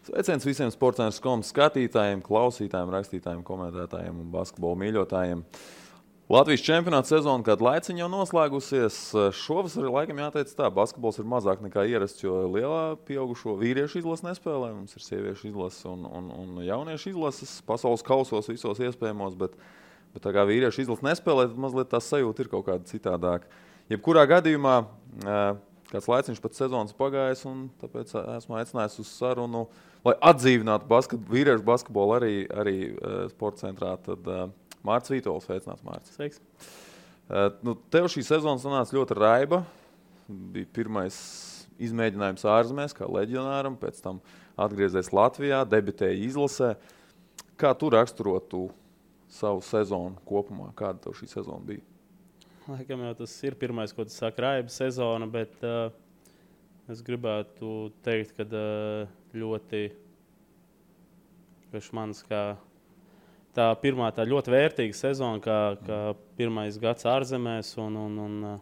Sveiciens visiem sports.com skatītājiem, klausītājiem, rakstītājiem, komentētājiem un basketbola mīļotājiem. Latvijas čempionāta sezona kādu laiciņu jau noslēgusies. Šovasar laikam jāteic tā, basketbols ir mazāk nekā ierasts, jo lielā pieaugušo vīriešu izlase nespēlē. Mums ir sieviešu izlase un jauniešu izlases pasaules kausos visos iespējamos, bet tā kā vīriešu izlase nespēlē, tad mazliet tā sajūta ir kaut kāda citādāka. Jebkurā gadījumā kāds laiciņš pat sezonas pagājis, un tāpēc esmu aicinājis uz sarunu, lai atdzīvinātu vīriešu basketbolu arī sporta centrā. Tad Mārcis Vītols, sveicināts, Mārcis. Sveiks. Tev šī sezona sanāca ļoti raiba. Bija pirmais izmēģinājums ārzemēs, kā leģionāram, pēc tam atgriezies Latvijā, debitēja izlasē. Kā tu raksturotu savu sezonu kopumā? Kāda tev šī sezona bija? Laikam jau tas ir pirmais, ko tu saki, raiba sezona, bet es gribētu teikt, ka ļoti priekš manis kā tā pirmā tā ļoti vērtīga sezona, kā pirmais gads ārzemēs un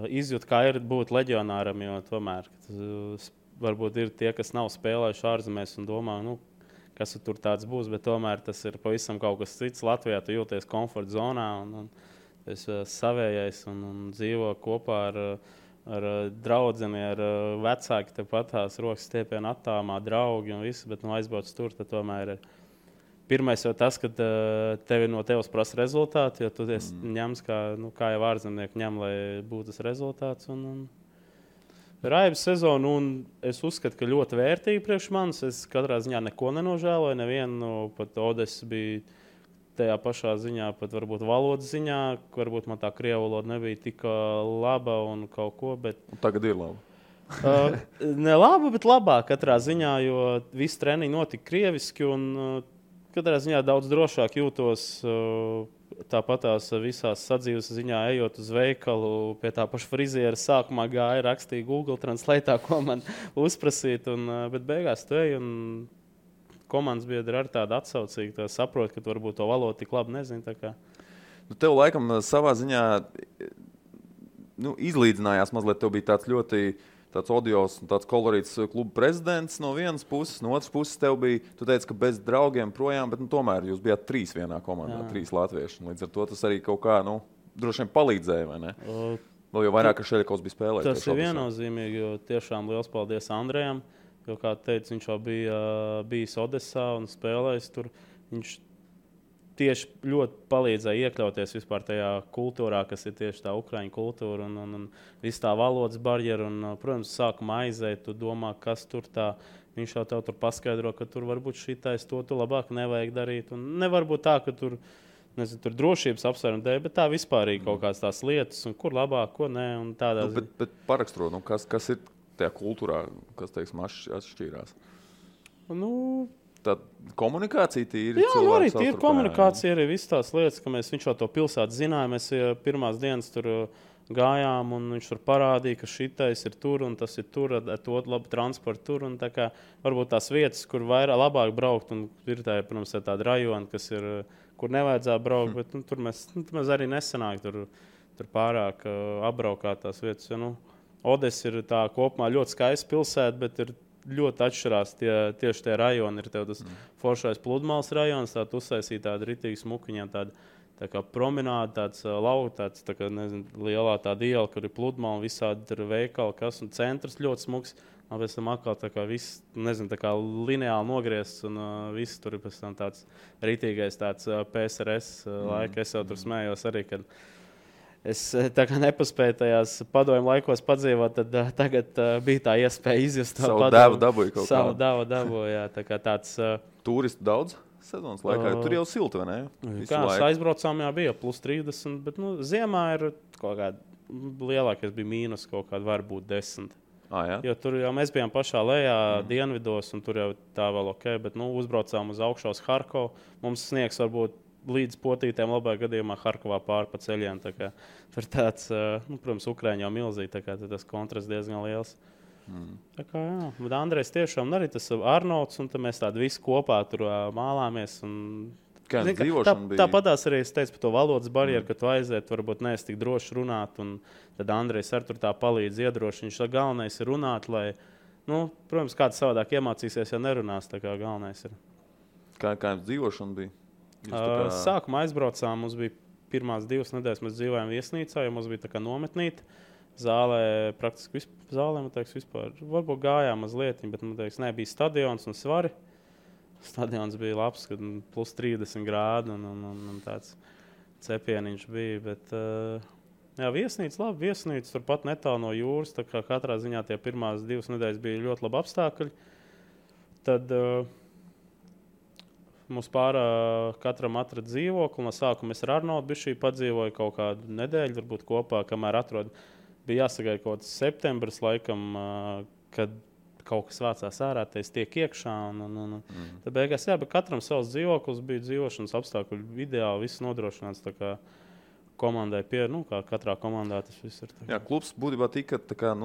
izjūt, kā ir būt leģionāram, jo tomēr varbūt ir tie, kas nav spēlējuši ārzemēs un domā, kas tur tāds būs, bet tomēr tas ir pavisam kaut kas cits. Latvijā tu jūties komforta zonā un es savējais un dzīvo kopā ar draudzeni, ar vecāki, tepat tās rokas stiepienu attāmā, draugi un viss, bet aizbrauc tur, tad tomēr ir pirmais jau tas, ka tevi no tevis prasa rezultāti, jo tu ņems, kā jau ārzemnieki ņem, lai būtu tas rezultāts. Raibas sezonu, un es uzskatu, ka ļoti vērtīgi priekš manis. Es katrā ziņā neko nenožēloju, nevienu, pat Odes bija tajā pašā ziņā, pat varbūt valodas ziņā, varbūt man tā krievu valoda nebija tik laba un kaut ko, bet... Tagad ir laba. Ne laba, bet labāk katrā ziņā, jo visi treniņi notika krieviski, un katrā ziņā daudz drošāk jūtos tāpatās visās sadzīves ziņā, ejot uz veikalu, pie tā paša friziera sākumā gāja, rakstīja Google Translate, ko man uzprasīt, bet beigās tu ej, un komandas biedri ar tādu atsaucīgu, tā saprot, ka tu varbūt to valodu tik labi nezini. Tev laikam savā ziņā izlīdzinājās mazliet, tev bija tāds ļoti tāds odios un tāds kolorīts kluba prezidents no vienas puses, no otras puses tev bija, tu teici, ka bez draugiem projām, bet tomēr jūs bijāt 3 vienā komandā, 3 latvieši. Līdz ar to tas arī kaut kā, droši vien palīdzēja, vai ne? Vēl jau vairāk, ka Šeļakovs bija spēlējis. Tas ir viennozīmīgi, jo tiešām liels paldies Andrejam. Jo, kā teicu, viņš jau bija bijis Odesā un spēlējis tur. Viņš tieši ļoti palīdzēja iekļauties vispār tajā kultūrā, kas ir tieši tā ukraiņu kultūra un viss tā valodas barjera. Protams, sākumā aizēja, tu domā, kas tur tā. Viņš jau tev tur paskaidro, ka tur varbūt šitais to tu labāk nevajag darīt. Un nevar būt tā, ka tur drošības apsvērumi dēļ, bet tā vispārīgi kaut kādas tās lietas, un kur labāk, ko nē. Bet parakstro, kas ir tajā kultūrā, kas, teiksim, atšķīrās? Tā komunikācija tīri cilvēku savstarpējā. Arī tīri komunikācija, arī visas tās lietas, ka viņš jau to pilsētu zināja. Mēs pirmās dienas tur gājām, un viņš tur parādīja, ka šitais ir tur, un tas ir tur, ar to labu transportu tur. Un tā kā varbūt tās vietas, kur vairāk labāk braukt, un ir tā, protams, tāda rajona, kas ir, kur nevajadzētu braukt, bet tur mēs arī nesanāk tur pārāk apbraukāt tās vietas. Odes ir tā kopumā ļoti skaista pilsēta, bet ir ļoti atšķirās tieši tie rajoni. Ir tev tas foršais Pludmales rajons, tāda uzsaisīta tāda ritīgi smukiņā, tā kā promenāda, tāds lauks, tā kā, lielā tāda iela, kur ir Pludmale, visādi ir veikali, kas, un centrs ļoti smuks. Un pēc tam atkal tā kā viss, tā kā lineāli nogriezts, un viss tur ir pēc tam tāds ritīgais tāds PSRS laika. Es jau tur smējos arī, kad es tā kā nepaspēju tajās padomju laikos padzīvot, tad tagad bija tā iespēja izjust savu devu dabūju kaut kā. Savu devu dabūju, jā. Tā kā tāds... Turistu daudz sezonas laikā? Tur jau silti, vai ne? Kā aizbraucām, bija plus 30, bet ziemā ir kaut kāda lielākais bija mīnus kaut kāda varbūt 10. Jā? Jo tur jau mēs bijām pašā lejā dienvidos, un tur jau tā vēl ok, bet uzbraucām uz augšu uz Harkovu. Mums sniegs varbūt līdz potītēm labā gadījumā Harkovā pāri pa ceļiem. Tur tāds, protams, Ukraiņa jau milzīgi, tā kā tas kontrasts diezgan liels. Tā kā, jā. Bet Andrejs tiešām arī tas Arnolds, un tad mēs tādi visi kopā tur mālāmies. Kā dzīvošana bija? Tāpatās arī es teicu par to valodas barjeru, ka tu aiziet, varbūt neesi tik droši runāt, un tad Andrejs ar tur tā palīdz iedroši. Viņš galvenais ir runāt, lai Protams, kāds savādāk iemācīsies, ja nerunās, tā kā galvenais ir. Kā jums dzīvošana bija? Sākumā aizbraucām, mums bija pirmās 2 nedēļas, mēs dzīvojām viesnīcā, jo mums bija tā kā nometnīte. Zālē praktiski vispār, varbūt gājām mazliet, bet, nebija stadions un svari. Stadions bija labs, kad plus 30 grādi un tāds cepieniņš bija, bet, viesnīca, labi, viesnīca, turpat netālu no jūras, tā kā katrā ziņā tie pirmās 2 nedēļas bija ļoti labi apstākļi. Tad mums katram atrada dzīvokli, no sākuma es ar Arnoldu bišķī padzīvoju kaut kādu nedēļu, varbūt kopā, kamēr atrod. Bija jāsagaida kaut kāds septembris, laikam, kad kaut kas vācās ārā, tas tiek iekšā. Tad beigās, bet katram savs dzīvoklis bija dzīvošanas apstākļi ideāli, viss nodrošināts tā kā komandai kā katrā komandā tas viss ir. Jā, klubs būtībā tika tā kā,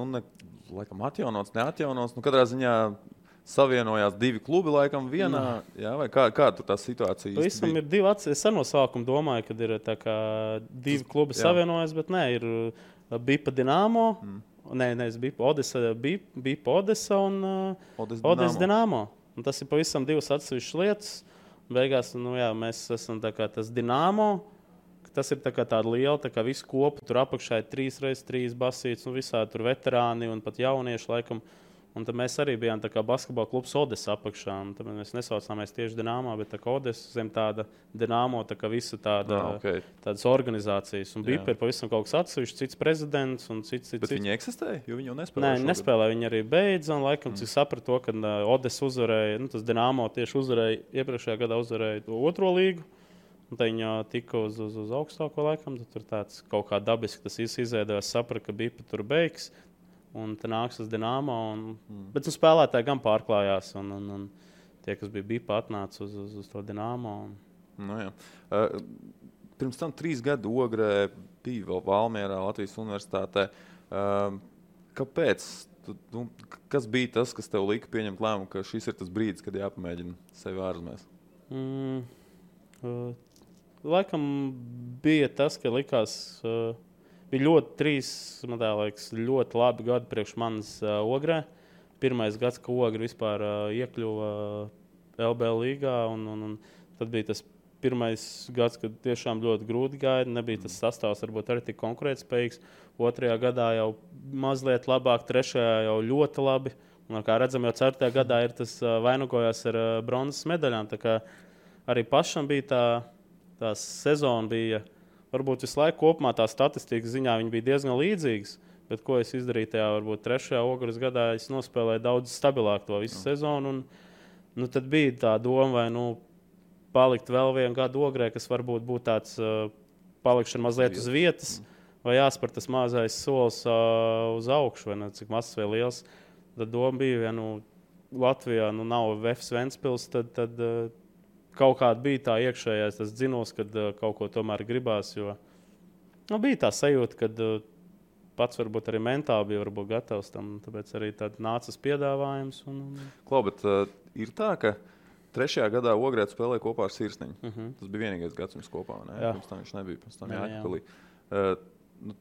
laikam atjaunots, neatjaunots. Kādā ziņā savienojās 2 klubi laikam vienā, jā, vai kā tur tā situācija īsti bija? Ir 2 es no sākuma domāju, kad ir tā kā 2 klubi savienojas, bet nē, ir Bipa Dinamo, Bipa Odesa un Odesa Dinamo. Un tas ir pavisam 2 atsevišķas lietas. Beigās, mēs esam tā kā tas Dinamo, tas ir tā kā tāda liela, tā kā visu kopu, tur apakšā ir 3x3 basītes, un visādi tur veterāni un pat jaunieši laikam. Un tad mēs arī bijām tā kā basketbola klubs Odesa apakšā. Tad mēs nesaucāmies tieši Dinamo, bet tā kā Odesa zem tāda Dinamo, tā kā visa tādas organizācijas. Un Bipa ir pavisam kaut kas atsevišķs, cits prezidents un cits. Bet viņi eksistēja, jo viņi jau nespēlēja? Nē, viņi nespēlēja, viņi arī beidza. Un laikam, cik sapratu to, ka Odesa uzvarēja, tas Dinamo tieši uzvarēja, iepriekšējā gadā uzvarēja 2. līgu. Un tad viņi tika uz augstāko laikam. Tad tur tāds kaut kā dabiski tas izveidojās, sapratu, ka Bipa tur beigs. Un tā nāks uz Dinamo. Bet spēlētāji gan pārklājās. Un tie, kas bija Bipa, atnāca uz to Dinamo. Pirms tam 3 gadu Ogrē bija vēl Valmierā, Latvijas universitātē. Kāpēc? Kas bija tas, kas tev lika pieņemt lēmumu, ka šis ir tas brīdis, kad jāpamēģina sevi ārzemēs? Laikam bija tas, ka likās... Bija ļoti labi gadi priekš manas Ogrē. Pirmais gads, ka Ogra vispār iekļuva LBL līgā. Un tad bija tas pirmais gads, kad tiešām ļoti grūti gāja. Nebija tas sastāvs varbūt arī tik konkurētspējīgs. 2. gadā jau mazliet labāk, 3. jau ļoti labi. Un, kā redzam, jau 4. gadā ir tas vainagojās ar bronzas medaļām. Tā kā arī pašam bija tā sezona bija... Varbūt visu laiku kopumā tā statistikas ziņā viņi bija diezgan līdzīgas, bet ko es izdarīju tajā varbūt 3. Ogres gadā, es nospēlēju daudz stabilāk to visu sezonu. Un, tad bija tā doma, vai palikt vēl vienu gadu Ogrē, kas varbūt būtu tāds palikšana mazliet uz vietas, vai jāspēr tas mazais solis uz augšu, vai cik mazs vai liels. Tad doma bija, ja Latvijā nav VFS Ventspils, tad kaut kāda bija tā iekšējais tas dzinos, kad kaut ko tomēr gribās, jo bija tā sajūta, kad pats varbūt arī mentāli bija varbūt gatavs tam, tāpēc arī tad nācas piedāvājums. Klau, bet ir tā, ka 3. gadā Ogrē spēlēja kopā ar Sirsniņu. Tas bija vienīgais gads jums kopā, ne? Pirms tam viņš nebija, pirms tam Jākapilī.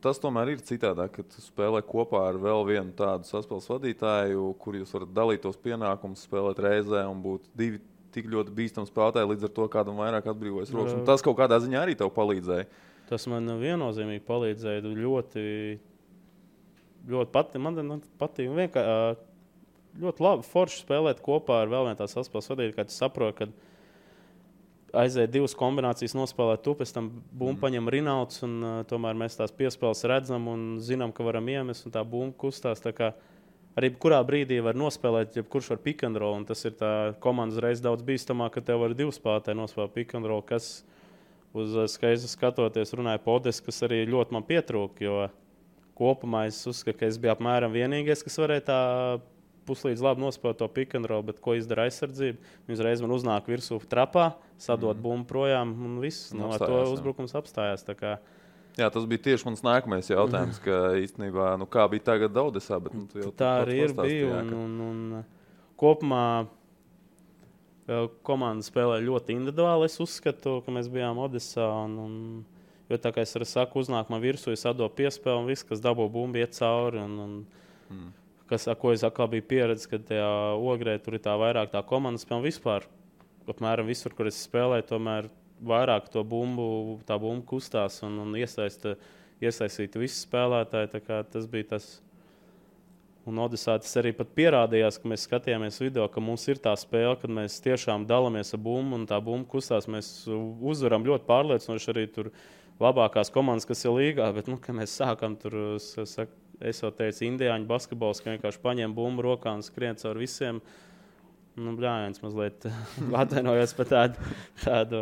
Tas tomēr ir citādāk, ka tu spēlē kopā ar vēl vienu tādu saspēles vadītāju, kur jūs varat dalīt tos pienākumus, spēlēt reizē un būt 2 tik ļoti bīstami spēlētāji, līdz ar to kādam vairāk atbrīvojas rokas. Un tas kaut kādā ziņā arī tev palīdzēja. Tas man viennozīmīgi palīdzēja. Ļoti man patīk. Ļoti labi forši spēlēt kopā ar vēl vienu tā saspēles vadītāju, kad tu saproti, ka aiziet 2 kombinācijas nospēlēt tu, pēc tam bumbu paņem Rinalds, un tomēr mēs tās piespēles redzam un zinām, ka varam iemest, un tā bumba kustās. Tā kā arī kurā brīdī var nospēlēt, ja kurš var pick and roll, un tas ir tā komandas reiz daudz bīstamāk, ka tev var 2 spēlētāji nospēlēt pick and roll, kas uz skaistu skatoties runāja Podes, kas arī ļoti man pietrūka, jo kopumā es uzskatu, ka es biju apmēram vienīgais, kas varēja tā puslīdz labi nospēlēt to pick and roll, bet ko izdara aizsardzība? Viņi uzreiz man uznāk virsū trapā, sadot bumbu projām, un viss, ar to uzbrukums apstājās. Tā kā jā, tas bija tieši mans nākamais jautājums, ka īstenībā, kā bija tagad Odesā, bet tu jau tā arī ir bija, un kopumā komanda spēlē ļoti individuāli. Es uzskatu, ka mēs bijām Odesā, jo tā kā es arī saku, uznāk man virsū, es atdodu piespēli, un viss, kas dabū bumbu, iet cauri, ko es atkal biju pieredzis, kad tajā Ogrē tur ir tā vairāk tā komandas spēle vispār. Apmēram visur, kur es spēlēju, tomēr vairāk tā bumba kustās un iesaistītu visus spēlētāji. Tā kā tas bija tas. Un Odesā tas arī pat pierādījās, ka mēs skatījāmies video, ka mums ir tā spēle, kad mēs tiešām dalāmies ar bumbu un tā bumba kustās. Mēs uzvaram ļoti pārliecinoši arī tur labākās komandas, kas ir līgā. Bet, kad mēs sākam tur, es jau teicu, indiāņu basketbols, ka vienkārši paņem bumbu rokā un skrien caur visiem. Bļājiens mazliet atvainojos par tādu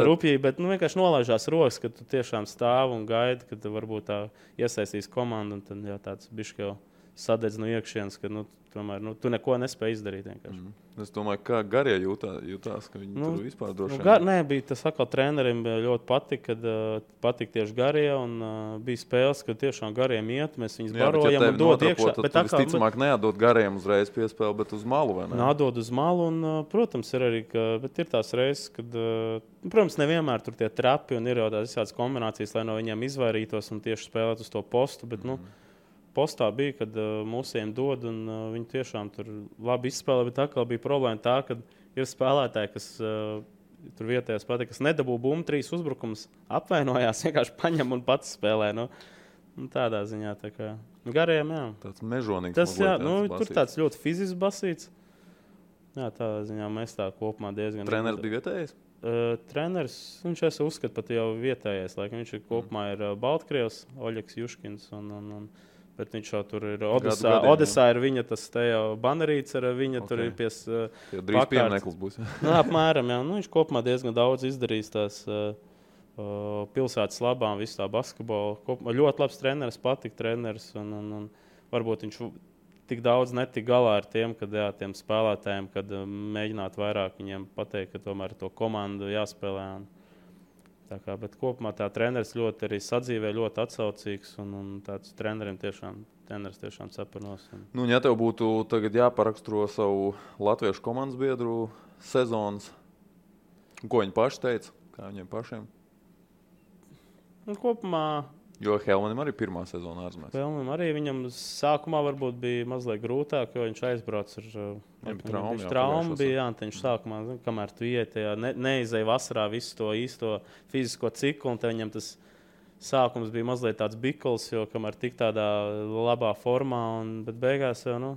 rupjību, bet vienkārši nolaižās rokas, ka tu tiešām stāv un gaidi, ka tu varbūt tā iesaistīs komandu, un tad jā, tāds bišķi jau sadedz no iekšienes, ka tomēr tu neko nespēji izdarīt vienkārši. Es domāju, kā garie jūtās, ka viņi tur vispār droši vien. Nē, bija tas atkal trenerim ļoti patika tieši garie, un bija spēles, kad tiešām gariem iet, mēs viņus barojam un dod iekšā. Bet visticamāk neatdod gariem uzreiz piespēli, bet uz malu, vai ne? Atdod uz malu, un, protams, ir arī, bet ir tās reizes, kad, protams, nevienmēr tur tie trapi, un ir jau tās visādas kombinācijas, lai no viņiem izvairītos un tieši spēlēt uz to postu, bet, postā bija, kad mūsiem dod, un viņi tiešām tur labi izspēlē, bet atkal bija problēma tā, ka ir spēlētāji, kas tur vietējās patīk, kas nedabū bumbu 3 uzbrukumus, apvainojās, vienkārši paņem un pats spēlē. Tādā ziņā. Tā kā. Gariem, jā. Tāds mežonīgs. Tas, jā, tur tāds ļoti fizisks basīts. Jā, tādā ziņā mēs tā kopumā diezgan... Treneris bija vietējais? Treneris, viņš uzskata pat jau vietējais. Viņš kopumā ir Baltkrievs, Oļegs Juškins bet viņš jau tur ir Odesā ir viņa tas te jau banerīts ar viņa tur ir pies drīz piemineklis būs. Apmēram, jā. Viņš kopumā diezgan daudz izdarījis tās pilsētas labām, visu tā basketbolu. Ļoti labs treneris, patika treneris un varbūt viņš tik daudz netika galā ar tiem spēlētājiem, kad mēģināt vairāk viņiem pateikt, ka tomēr to komandu jāspēlē. Bet kopumā tā treneris ļoti arī sadzīvē, ļoti atsaucīgs un tāds treneris tiešām cepurnos. Ja tev būtu tagad jāparaksturo savu latviešu komandas biedru sezonas, ko viņi paši teica, kā viņiem pašiem? Kopumā... Jo Helmanim arī pirmā sezona ārzemēs. Helmanim arī viņam sākumā varbūt bija mazliet grūtāk, jo viņš aizbrauc ar traumu. Viņš sākumā, kamēr tu iet, neizēja vasarā visu to īsto fizisko ciklu, un viņam tas sākums bija mazliet tāds bikls, jo kamēr tik tādā labā formā, bet beigās jau,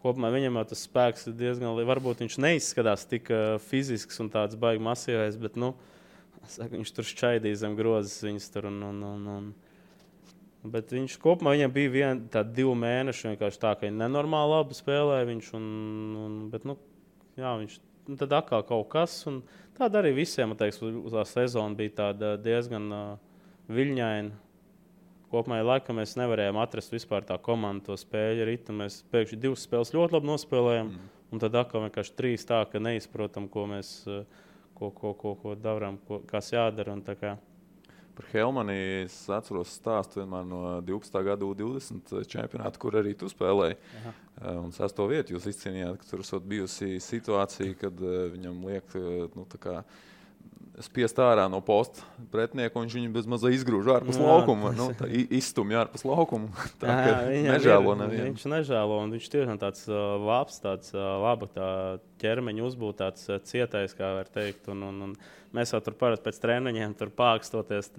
kopumā viņam jau tas spēks ir diezgan, varbūt viņš neizskatās tik fizisks un tāds baigi masīvais, bet, viņš tur šķaidīja zem grozes viņas tur bet viņš kopumā viņam bija 2 mēneši vienkārši tā, ka viņš nenormāli labi spēlēja viņš bet, viņš tad atkal kaut kas un tāda arī visiem, uz tā sezona bija tāda diezgan viļņaina. Kopumā laikam mēs nevarējām atrast vispār tā komanda to spēļu ritu. Mēs pēkšņi 2 spēles ļoti labi nospēlējām un tad atkal vienkārši 3 tā, ka neizprotam, ko mēs ko darām, kas jādara un tā kā. Par Helmani es atceros stāstu vienmēr no 12. gada U20 čempionāta, kur arī tu spēlēji. Un 6. vietu jūs izcīnījāt, ka tur esot bijusi situācija, kad viņam liek tā kā spiest ārā no posta pretinieku, un viņš viņu bez mazā izgrūž ārpus laukuma. Izstumj ārpus laukuma. Tā kā nežēlo nevienu. Viņš nežēlo, un viņš tiešām tāds labs, tāds laba tā ķermeņa uzbūt, tāds cietais, kā var teikt. Un mēs jau tur parasti pēc treniņiem tur pākstoties.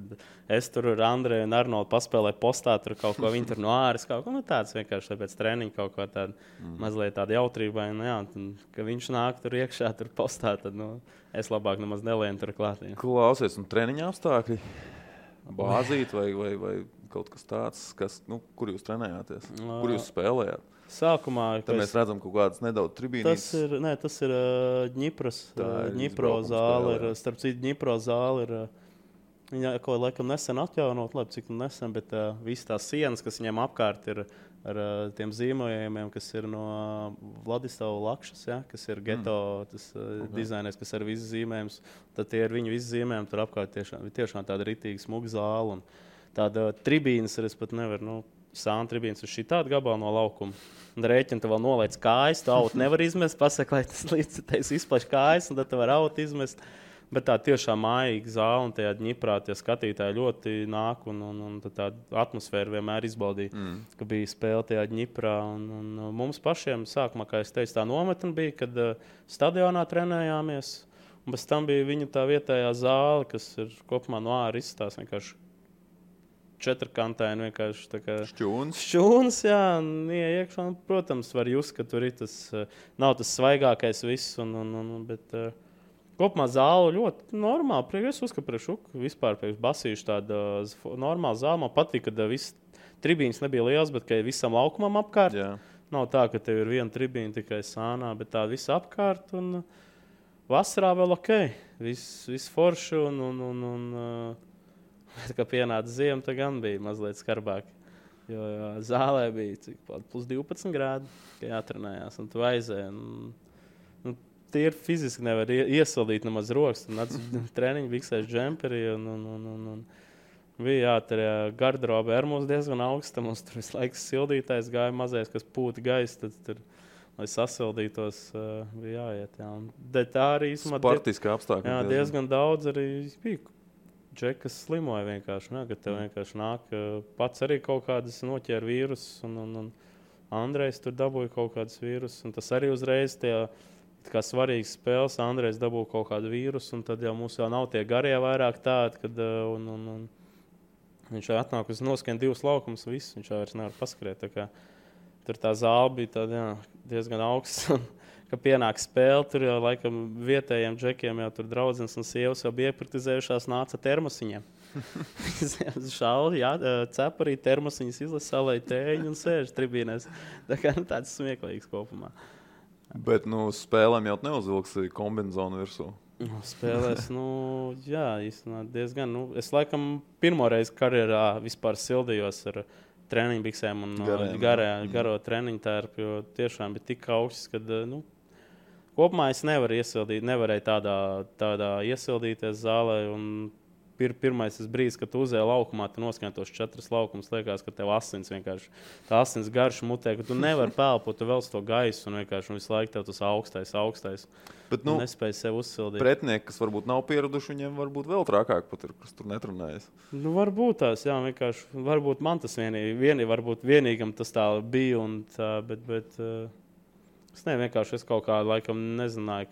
Es tur ar Andreju un Arnoldu paspēlēju postā, tur kaut ko viņi tur no āras, kaut ko tāds vienkārši pēc treniņa kaut ko tādu mazliet tādu jautrībai. Ka viņš nāk tur iekšā, tur postā, tad es labāk nemaz nelienu tur klāt. Klausies, un treniņa apstākļi? Bāzīt vai kaut kas tāds, kur jūs trenējāties? Kur jūs spēlējāt? Sākumā, tad mēs redzam kaut kādas nedaudz tribīnītes. Tas ir Dņipro zāle. Starp citu, Dņipro zāle ir, viņa kaut laikam nesen atjaunot, labi, cik nesen, bet visas tās sienas, kas viņiem apkārt ir ar tiem zīmējumiem, kas ir no Vladislavas Lakšas, kas ir geto dizainers, kas ir visas zīmējums. Tad tie ir viņu visi zīmējumi, tur apkārt tiešām tāda ritīga smuga zāle. Un tāda tribīnas es pat nevaru, sāna tribīnas uz šī tāda gabala no laukuma. Un rēķina, tu vēl nolaic kājas, tu autu nevar izmest, pasaka, lai tas līdz tevis izplaš kājas, un tad tu var autu izmest. Bet tā tiešām mājīga zāle un tajā Ņiprā tie skatītāji ļoti nāk un tā atmosfēra vienmēr izbaudīja, ka bija spēle tajā Ņiprā. Un mums pašiem sākumā, kā es teicu, tā nometne bija, kad stadionā trenējāmies. Un bez tam bija viņa tā vietējā zāle, kas ir kopumā no ārā izstāsta vienkārši četrkantaini, vienkārši tā kā šķūns, jā, un iekšā. Protams, var just, ka tur ir tas, nav tas svaigākais viss, bet kopumā zāle ļoti normāli. Es uzskatu, ka vispār basīšu tāda normāla zāle. Man patīk, ka viss tribīns nebija liels, bet ka visam laukumam apkārt. Jā. Nav tā, ka tev ir viena tribīna tikai sānā, bet tā visa apkārt. Un vasarā vēl ok, viss forši. Kad pienāca ziema, tad gan bija mazliet skarbāk. Jo zālē bija plus 12 grādi, kad jātrenējās. Un tu aizēji. Tie ir fiziski nevar iesildīt nemaz rokas. Treniņu biksēs džemperī. Bija jāturē garderobe ar mums diezgan augsta. Mums tur visu laiku sildītājs gāja mazais, kas pūta gaisa. Tad tur, lai sasildītos, bija jāiet. Jā. Tā arī sportiski apstākļi. Jā, diezgan daudz arī bija. Džekas slimoja vienkārši. Ne, kad tev vienkārši nāk pats arī kaut kādas noķēra vīrusus. Un Andrejs tur dabūja kaut kādas vīrusus. Un tas arī uzreiz tie kā svarīgas spēles. Andrejs dabūja kaut kādu vīrusu. Un tad jau mums jau nav tie garie vairāk tādi, kad viņš atnāk uz noskan 2 laukumus. Viss, viņš vairs nevar paskriet. Tur tā zāle bija tāda, jā, diezgan augsts. Kad pienāk spēle, tur jau laikam vietējiem džekiem jau tur draudzenes un sievas jau bija iepraktizējušās, nāca termosiņiem. Šauli, jā, cep arī termosiņas izlasa, salēja tēņu un sēž tribīnēs. Tā kā tāds smieklīgs kopumā. Bet, spēlēm jau neuzvilksi kombinzonu virsū. Spēlēs, jā, īstenībā diezgan. Es laikam pirmo reizi karjerā vispār sildījos ar treniņu biksēm un garo treniņu tērpu, jo tiešām bija tik augsts, kad, kopumā es nevarēju tādā iesildīties zālē. Pirmais brīdis, kad tu uzēji laukumā, tu noskan tos 4 laukumus, liekas, ka tev asins vienkārši, tā asins garš mutē, ka tu nevari pelpot, tu velc to gaisu un vienkārši visu laiku tev tas augstais. Bet, nespēj sev uzsildīt. Pretinieki, kas varbūt nav pieraduši, viņiem varbūt vēl trakāk pat ir, kas tur netrenējas. Varbūt tās, jā, vienkārši, varbūt man tas varbūt vienīgam tas tā bija un tā, bet es vienkārši kaut kā laikam nezināju,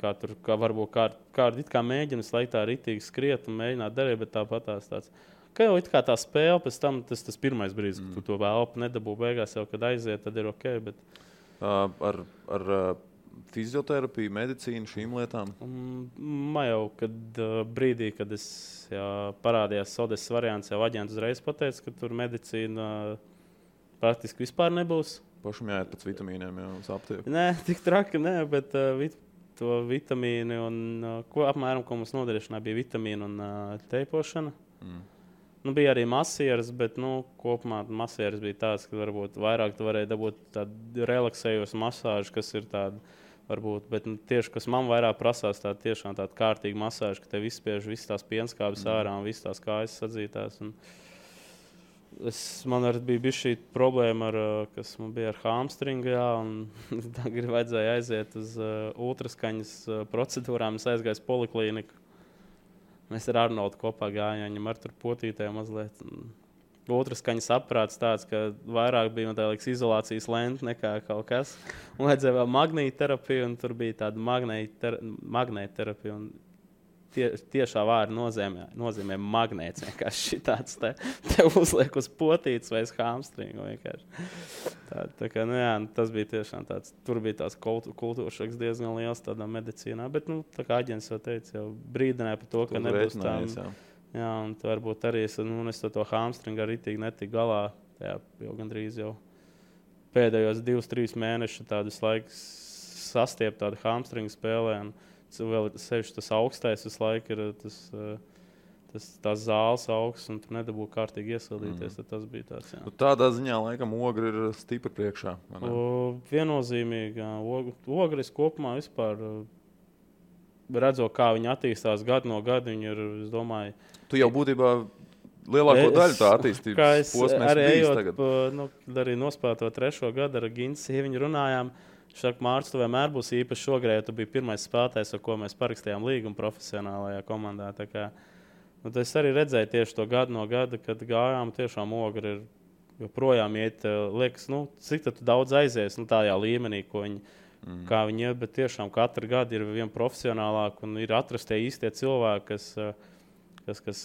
kā varbūt kādi it kā mēģina slēgt tā ritīgi skriet un mēģināt darīt, bet tāpat tāds. Kā jau it kā tā spēle, pēc tam tas pirmais brīdis, ka tu to elpu nedabū beigās jau, kad aiziet, tad ir ok. Bet... Ar fizioterapiju, medicīnu, šīm lietām? Man jau, kad brīdī, kad es parādījās Odesas variants, jau aģents uzreiz pateica, ka tur medicīna praktiski vispār nebūs. Pašam jāiet pēc vitamīniem jau uz aptieku? Nē, tik traki, nē, bet to vitamīni un apmēram, ko mums nodarīšanā bija vitamīna un teipošana. Bija arī masieres, bet kopumā masieres bija tāds, ka varbūt vairāk tu varēji dabūt tādu relaksējošu masāžu, kas ir tāda, varbūt, bet tieši, kas man vairāk prasās, tiešām tāda kārtīga masāža, ka tev izspiež visas tās pienskābes ārā un visas tās kājas sadzītās. Man arī bija šī problēma, kas man bija ar hamstringu, un tagad vajadzēja aiziet uz ultraskaņas procedūrām. Es aizgāju uz poliklīniku. Mēs ar Arnoldu kopā gājām, viņam ar tur potītēm mazliet. Ultraskaņas aparāts tāds, ka vairāk bija izolācijas lente nekā kaut kas. Un vajadzēja vēl magnētterapiju, un tur bija tāda magnētterapija. Tiešā vārda nozīmē magnēts. Vienkārši tāds te uzliek uz potītes vai uz hamstringu. Tas bija tiešām tāds. Tur bija tās kultūršoks diezgan liels tādā medicīnā. Bet, tā kā aģents jau teica, jau brīdināja par to, ka nebūs tā. Jā, un varbūt arī es to hamstringu arī tik netiku galā. Jā, jau gandrīz jau pēdējos 2-3 mēnešus tādus laikus sastiept tādu hamstringu spēlē. Vēl sevišķi tas augstais visu laiku ir tas zāles augsts, un tu nedabū kārtīgi iesildīties. Tas bija tāds, jā. Tādā ziņā, laikam, ogri ir stipri priekšā. Viennozīmīgi. Ogris kopumā vispār redzot, kā viņi attīstās gadu no gada, viņi ir, es domāju... Tu jau būtībā lielāko daļu tā attīstības posmēs bijis tagad. Arī nospēlēt to 3. gadu ar Gintu sieviņu runājām, Viņš saka, Mārcis, tu vienmēr būsi īpaši šogrē, jo tu biji pirmais spēlētājs, ar ko mēs parakstījām līgumu profesionālajā komandā. Tā kā, es arī redzēju tieši to gadu no gada, kad gājām tiešām Ogre ir joprojām iet, liekas, cik tu daudz aizies tādā līmenī, ko viņi, kā viņi iet, bet tiešām katru gadu ir vien profesionālāk un ir atrastie īstie cilvēki, kas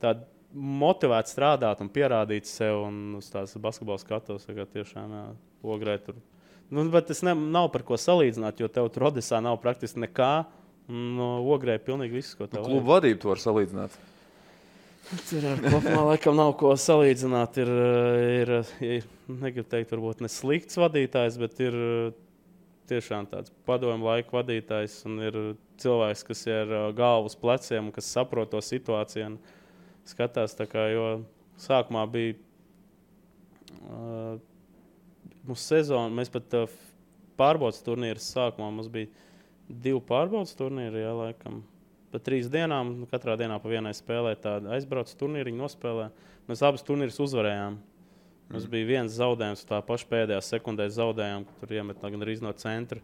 tādi motivēti strādāt un pierādīt sev un uz tās basketbola skatos, kā tiešām Ogrē tur. Bet tas nav par ko salīdzināt, jo tev tur Odesā nav praktiski nekā, un Ogrē pilnīgi viss, ko tev klubu vadību tu var salīdzināt. Tur kopumā laikam nav ko salīdzināt. Ir negribu teikt, varbūt ne slikts vadītājs, bet ir tiešām tāds padomju laika vadītājs un ir cilvēks, kas ir galvu uz pleciem un kas saprot to situāciju un skatās. Tā kā, jo sākumā bija mūsu sezona, mēs pat pārbaudas turnīras sākumā, mums bija 2 pārbaudas turnīri, jā, laikam. Pa 3 dienām, katrā dienā pa vienai spēlē tādu aizbrauc turnīriņu nospēlē. Mēs abas turnīrus uzvarējām. Mums bija viens zaudējums, tā paša pēdējā sekundē zaudējām, ka tur iemet gan arī no centra.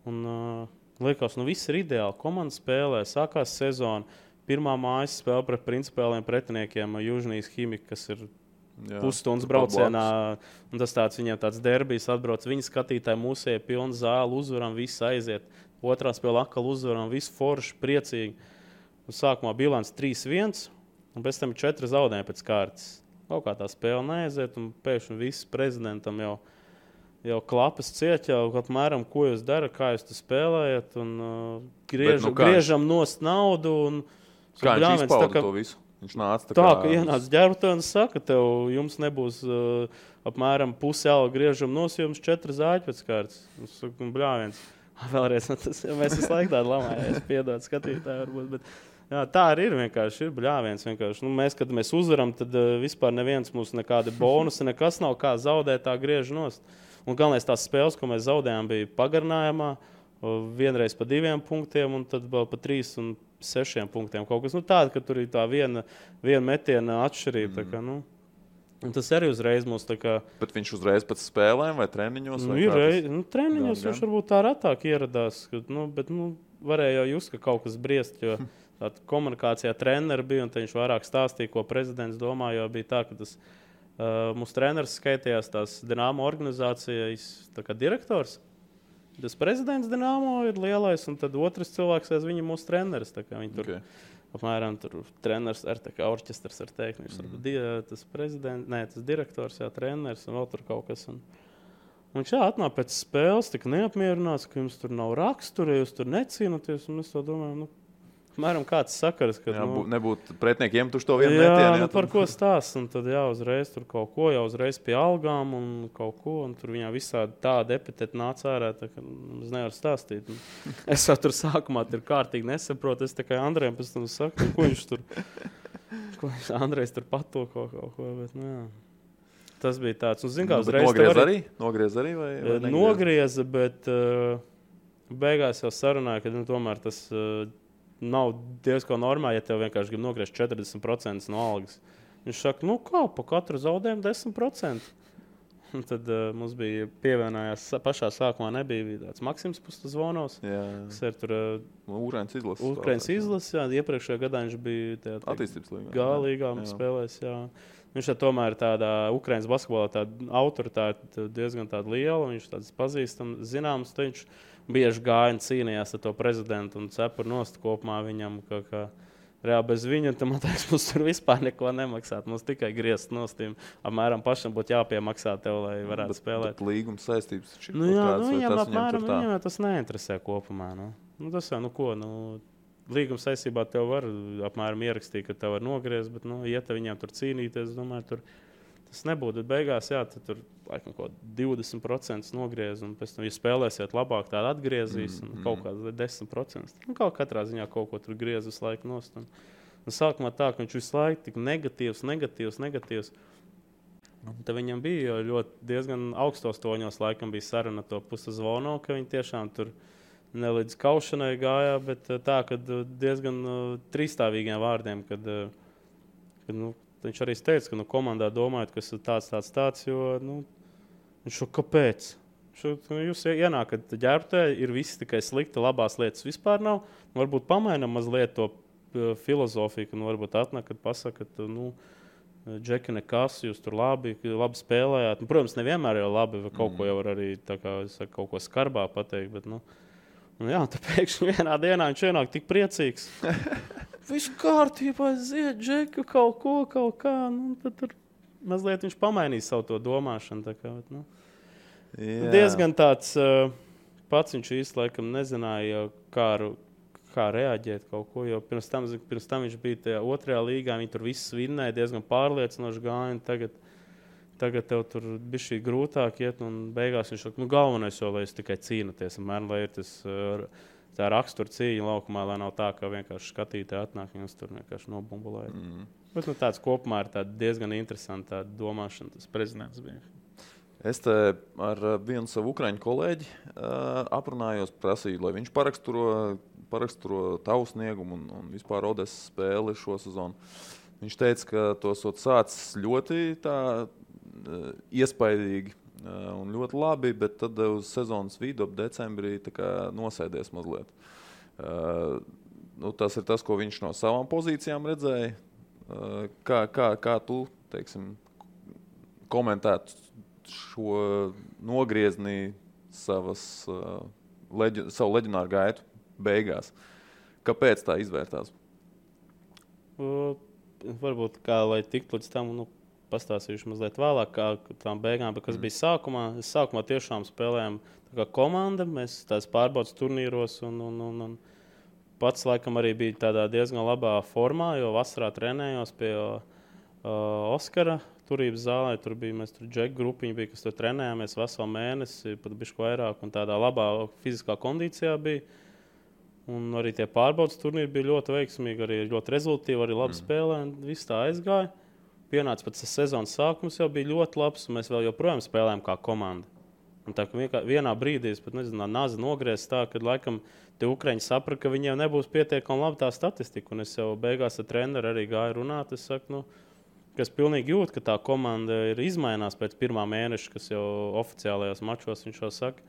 Un liekas, viss ir ideāli. Komanda spēlē, sākās sezona. Pirmā mājas spēle pret principāliem pretiniekiem Južnijas Himika, kas ir pusstundas braucienā. Un tas tāds viņiem tāds derbijs atbrauc. Viņi skatītāji mūsēja pilnu zāli, uzvaram, viss aiziet. Otrā spēle atkal uzvaram, visu forši, priecīgi. Un sākumā bilants 3-1, un pēc tam 4 zaudējumi pēc kārtas. Kaut kā tā spēle neaiziet, un pēkšņi viss prezidentam jau klapas ciet, jau apmēram, ko jūs darat, kā jūs tu spēlējat, un griežam nost naudu. Un, kā viņš izpauda to visu? Viņš nāca tā ka ienāca ģērbtē un saka, jums nebūs apmēram pusi alga griežam nost, jums 4 zāļi pēc kārtas. Un saka, bļāviens. Vēlreiz, mēs visu laiku tādu lamājamies, piedod skatītāji varbūt, bet jā, tā arī ir vienkārši, ir bļāviens vienkārši. Mēs, kad mēs uzvaram, tad vispār neviens mums nekādi bonusi, nekas nav kā zaudēt, tā griež nost. Un galvenais tās spēles, ko mēs zaudējām, bija pagarinājumā, vienreiz pa 2 punktiem un tad vēl pa 3 un 6 punktiem. Kaut kas tāda, ka tur ir tā viena metiena atšķirība. Tā kā, un tas arī uzreiz mums tā kā... Bet viņš uzreiz pēc spēlēm vai treniņos? Treniņos viņš varbūt tā ratāk ieradās, bet varēja jau just, ka kaut kas briest, jo tā komunikācijā treneri bija, un viņš vairāk stāstīja, ko prezidents domā, jo bija tā, ka tas mūsu treneris skaitījās tās Dinamo organizācijas tā kā direktors. Tas prezidents Dinamo ir lielais, un tad otrs cilvēks aiz viņa mūsu treneris. Tā kā viņi tur... Apmēram tur treneris ar orķestrs ar teikt. Tas prezidents, tas direktors, treneris un vēl tur kaut kas. Un viņš atnāk pēc spēles, tik neapmierināts, ka jums tur nav rakstura, jūs tur necīnaties. Un mēs to domājam, apmēram kāds sakars, ka... Nebūtu pretiniekiem tuši to vienu metienu. Par ko stāst. Un tad uzreiz tur kaut ko, uzreiz pie algām un kaut ko. Un tur viņā visādi tāda epiteta nāca ārā, tā ka es nevaru stāstīt. Es jau tur sākumā tur kārtīgi nesaprotu. Es tikai Andrejam pēc tam saku, ko viņš tur... Andrejs tur patoko kaut ko, bet jā. Tas bija tāds. Un, zin, kā, Nogriez arī? Vai nogrieza, bet beigās jau sarunāja, ka tomēr tas... nav diezko normāli, ja tev vienkārši grib nogriezt 40% no algas. Viņš saka, kā, pa katru zaudējumu 10%. Un tad mums bija pievienojās, pašā sākumā nebija tāds Maksims Pustazvonovs, kas ir tur Ukrainas izlases, iepriekšējā gadā viņš bija attīstības līgā. Galīgā spēlēs, Viņš tomēr tādā Ukrainas basketbolā tāda autoritāte diezgan tāda liela, viņš tāds pazīstams, zināms, viņš bieži gāja un cīnījās ar to prezidentu un cepur nost kopumā viņam, ka reāli bez viņa, tad man teiks, mums tur vispār neko nemaksāt. Mums tikai griezt nostīm. Apmēram pašam būtu jāpiemaksā tev, lai varētu spēlēt. Bet līguma saistības viņam apmēram viņam tas neinteresē kopumā. Tas jau, līguma saistībā tev var apmēram ierakstīt, ka tev var nogriezt, bet, ja te viņam tur cīnīties, domāju, tur tas nebūtu. Bet beigās, tad tur laikam kaut 20% nogriez, un pēc tam, ja spēlēsiet labāk, tāda atgriezīs, un kaut kāds 10%. Kaut katrā ziņā kaut ko tur griez visu laiku nost. Un sākumā tā, ka viņš visu laiku tik negatīvs. Un tad viņam bija ļoti diezgan augstos toņos, laikam bija saruna to Pustazvonovu, ka viņi tiešām tur ne līdz kaušanai gājā, bet tā, ka diezgan trīsstāvīgiem vārdiem, kad viņš arī teica, ka komandā domājot, kas ir tāds, jo viņš šo kāpēc? Jūs ienākat ģērbtē, ir viss tikai slikti, labās lietas vispār nav. Varbūt pamainam mazliet to filozofiju, ka varbūt atnāk, kad pasaka, ka, Džeki, nekas, jūs tur labi spēlējāt. Protams, nevienmēr jau labi, vai kaut ko jau var arī kaut ko skarbā pateikt, bet, jā, tā pēkšņi vienā dienā viņš ienāk tik priecīgs. Viss kārtībā, ziet, Džeki, kaut kā. Tad tur mazliet viņš pamainīs savu to domāšanu. Tā kā, diezgan tāds pats viņš īsti laikam nezināja, kā reaģēt kaut ko, jo pirms tam viņš bija tajā otrajā līgā, viņi tur viss vinnēja, diezgan pārliecinoši gāja, tagad tev tur bija šī grūtāk iet, un beigās viņš saka, galvenais jau, lai es tikai cīnoties, lai ir tas tā rakstura cīņa laukumā, lai nav tā, ka vienkārši skatītāji atnāk, viņus tur vienkārši nobumbulēja. Bet tāds kopumā ir diezgan interesanta domāšana, tas prezidents bija. Es te ar vienu savu ukraiņu kolēģi aprunājos, prasīju, lai viņš paraksturo tavu sniegumu un vispār Odesas spēli šo sezonu. Viņš teica, ka to esot sācis ļoti tā iespaidīgi un ļoti labi, bet tad uz sezonas vidu ap decembrī tā kā nosēdies mazliet. Tas ir tas, ko viņš no savām pozīcijām redzēja. Kā tu, teiksim, komentētu šo nogriezni savu leģionāru gaitu beigās? Kāpēc tā izvērtās? Varbūt, kā lai tiktu līdz tam, pastāstīšu mazliet vēlāk, kā tām beigām, bet kas bija sākumā. Es sākumā tiešām spēlējām tā kā komanda, mēs tās pārbaudas turnīros un pats laikam arī bija tādā diezgan labā formā, jo vasarā trenējos pie Oskara turības zālē. Tur bija, mēs tur džeku grupiņi bija, kas tur trenējāmies veselu mēnesi, pat bišķi vairāk, un tādā labā fiziskā kondīcijā bija. Un arī tie pārbaudas turnīri bija ļoti veiksmīgi, arī ļoti rezultīvi, arī labi spēlē, un viss tā aizgāja. Pienāca pēc sezonas sākums jau bija ļoti labs, un mēs vēl joprojām spēlējām kā komanda. Un tā, ka vienā brīdī es pat nezinu, nazi nogriezis tā, kad laikam tie ukraiņi saprata, ka viņiem nebūs pietiekami labi tā statistika. Un es jau beigās ar treneru arī gāju runāt. Es saku, ka es pilnīgi jūtu, ka tā komanda ir izmainās pēc pirmā mēneša, kas jau oficiālajos mačos viņš jau saka.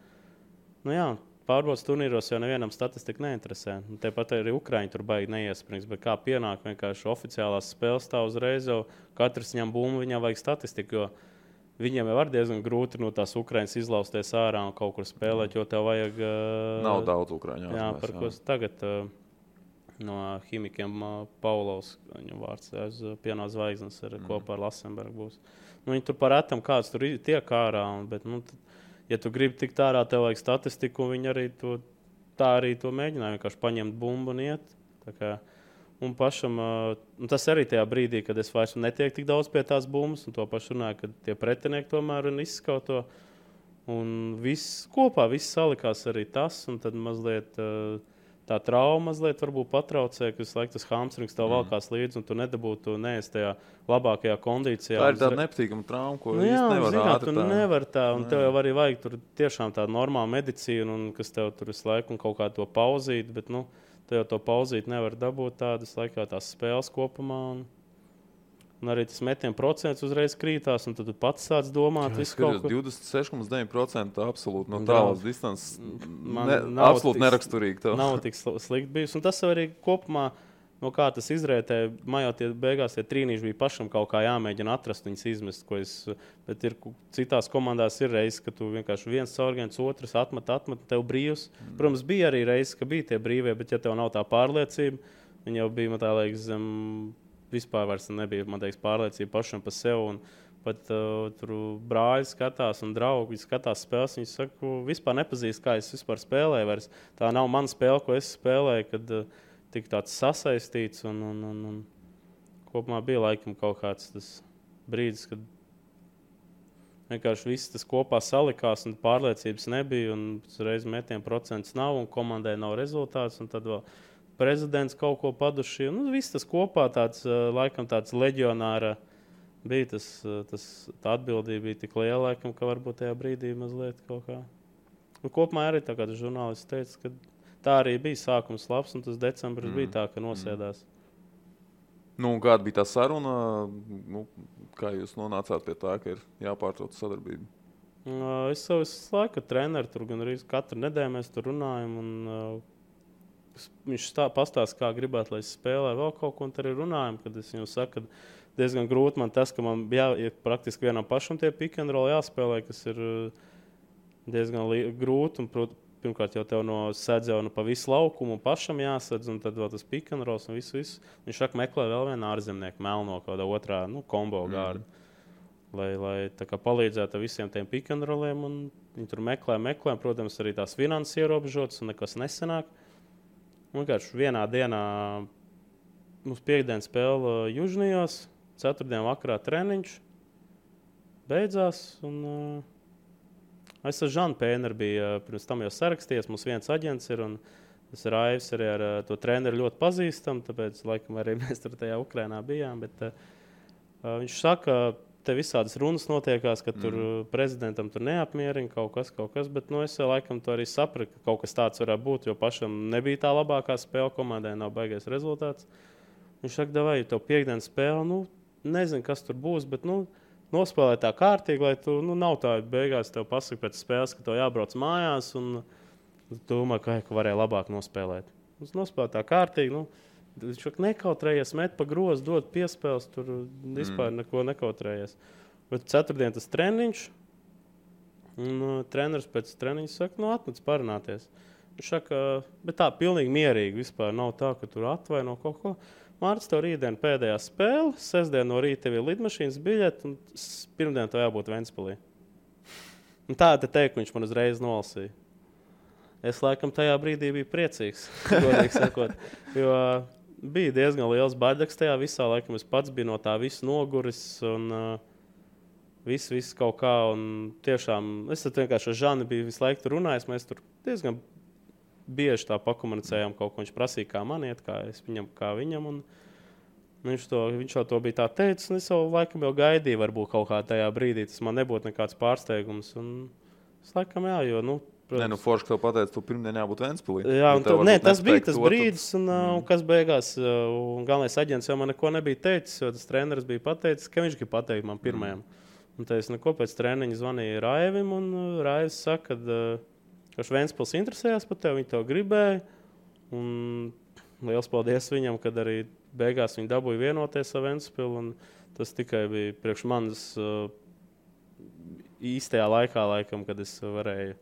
Pārbaudas turnīros jau nevienam statistika neinteresē. Tāpat arī Ukraiņi tur baigi neiesprings, bet kā pienāk vienkārši oficiālās spēles tā uzreiz jau katrs ņem bumbu, viņam vajag statistiku, jo viņiem jau var diezgan grūti no tās Ukraiņas izlausties ārā un kaut kur spēlēt, jo tev vajag... Nav daudz Ukraiņu. Jā, par ko tagad no ķīmikiem Paulovs, viņam vārds, pienā zvaigznes kopā ar Lasenbergu būs. Viņi tur par retam kāds tur tiek ārā, bet, ja tu gribi tikt ārā, tev vajag statistiku, un viņi arī to mēģināja, vienkārši paņemt bumbu un iet. Tā kā, un pašam, tas arī tajā brīdī, kad es vairs netieku tik daudz pie tās bumbas, un to pašu runāju, ka tie pretinieki tomēr izskauto. Un viss kopā, viss salikās arī tas, un tad mazliet tā trauma mazliet varbūt patraucē, ka visu laiku tas hamstrings tev valkās līdzi, un tu nedabūtu neesi tajā labākajā kondīcijā. Tā ir tāda nepatīkama trauma, ko īsti nevar ātri tā. Nevar tā, un tev jau arī vajag tur tiešām tādu normālu medicīnu, un kas tev tur visu laiku un kaut kā to pauzīt, bet, tu jau to pauzīt nevar dabūt tādas laikā tās spēles kopumā, un arī tas metienu procents uzreiz krītās, un tad tu pats sāc domāt visu kaut ko. 26,9% absolūti no tālas distances. Absolūti neraksturīgi tev. Nav tik slikti bijis, un tas arī kopumā, no kā tas izrētē, man jau beigās tie trīnīši bija pašam kaut kā jāmēģina atrast, viņas izmest, bet ir citās komandās ir reizes, ka tu vienkārši viens caurgiens, otrs atmet, tev brīvs. Protams, bija arī reizes, ka bija tie brīvie, bet ja tev nav tā pārliecība, viņi jau bija, man tā liekas, vispār vairs nebija, man teiks, pārliecība pašam par sevi, un pat tur brāļi skatās un draugi skatās spēles, viņi saka, vispār nepazīst, kā es vispār spēlēju vairs. Tā nav mana spēle, ko es spēlēju, kad tik tāds sasaistīts, un kopumā bija laikam kaut kāds tas brīdis, kad vienkārši viss tas kopā salikās, un pārliecības nebija, un reiz metienu procents nav, un komandai nav rezultāts, un tad vēl prezidents kaut ko paduši. Viss tas kopā tāds, laikam tāds leģionāra bija. Tā atbildība bija tik liela, laikam, ka varbūt tajā brīdī mazliet kaut kā. Kopumā arī tā kā tas žurnālists teica, ka tā arī bija sākums labs, un tas decembris bija tā, ka nosēdās. Kāda bija tā saruna? Kā jūs nonācāt pie tā, ka ir jāpārtrauc sadarbība? Es savu laiku treneru, tur gan arī katru nedēļu mēs tur runājam. Un, viņš pastāsta, kā gribētu, lai es spēlēju vēl kaut ko, un tur arī runājam. Kad es viņam saku, ka diezgan grūti man tas, ka man ir praktiski vienam pašam tie pick and roll jāspēlē, kas ir diezgan grūti. Un, pirmkārt, jau tev no sēdz jau pa visu laukumu pašam jāsadz, un tad vēl tas pick and rolls un visu. Viņš saka, meklē vēl vienu ārzemnieku, melno kādā otrā kombo gārdu. Lai tā kā palīdzētu visiem tiem pick and rolliem. Viņi tur meklē. Protams, arī tās finanses ierobežotas un nekas nesanāk. Vienkārši vienā dienā mums piekdienas spēle Južnijos, ceturtdien vakarā treniņš beidzās. Es ar Žanu Pēneru biju pirms tam jau sarakstījies. Mums viens aģents ir un tas Raivs arī ar to treneru ļoti pazīstam. Tāpēc, laikam, arī mēs tur tajā Ukrainā bijām. Bet, viņš saka, te visādas runas notiekās, ka tur prezidentam tur neapmierina kaut kas. Bet es laikam to arī sapratu, ka kaut kas tāds varētu būt, jo pašam nebija tā labākā spēle komandai, nav baigais rezultāts. Viņš saka, vai tev piekdienas spēle, nezinu, kas tur būs, bet nospēlē tā kārtīgi, lai tu nav tā beigās tev pasaka pēc spēles, ka tev jābrauc mājās un tu domā, ka varēja labāk nospēlēt. Viņš nospēlē tā kārtīgi, viņš nekautrējies, met pa grozu, dod piespēles, tur vispār neko nekautrējies. Bet ceturtdien tas treniņš, un treneris pēc treniņa saka, atnāc parunāties. Viņš saka, bet tā pilnīgi mierīgi vispār nav tā, ka tur atvaino kaut ko. Mārcis, tev rītdien pēdējā spēle, sestdien no rīta tev ir lidmašīnas biļete, un pirmdien tev jābūt Ventspilī. Un tā te teikt, viņš man uzreiz nolasīja. Es laikam tajā brīdī biju priecīgs, godīgi sakot, jo bija diezgan liels baidaks tajā visā. Laikam es pats biju no tā visu noguris un viss kaut kā. Un tiešām es vienkārši ar Žanu biju visu laiku tur runājis. Mēs tur diezgan bieži tā pakomunicējām kaut ko. Viņš prasīja, kā man iet, kā es viņam, kā viņam. Un viņš jau to bija tā teicis, un es jau laikam jau gaidīju, varbūt kaut kā tajā brīdī. Tas man nebūtu nekāds pārsteigums. Un es laikam jo, protams. Forši, ka tev pateica, tu pirmdien jābūt Ventspilī. Jā, tas bija tas brīdis, un kas beigās, un galvenais aģents jau man neko nebija teicis, jo tas treneris bija pateicis, ka viņš grib pateikt man pirmajam. Un tad es pēc treniņa zvanīju Raivim, un Raivs saka, ka Ventspils interesējās par tevi, viņi tev gribēja. Un liels paldies viņam, kad arī beigās viņi dabūja vienoties ar Ventspilu, un tas tikai bija priekš manis īstajā laikā, laikam, kad es varēju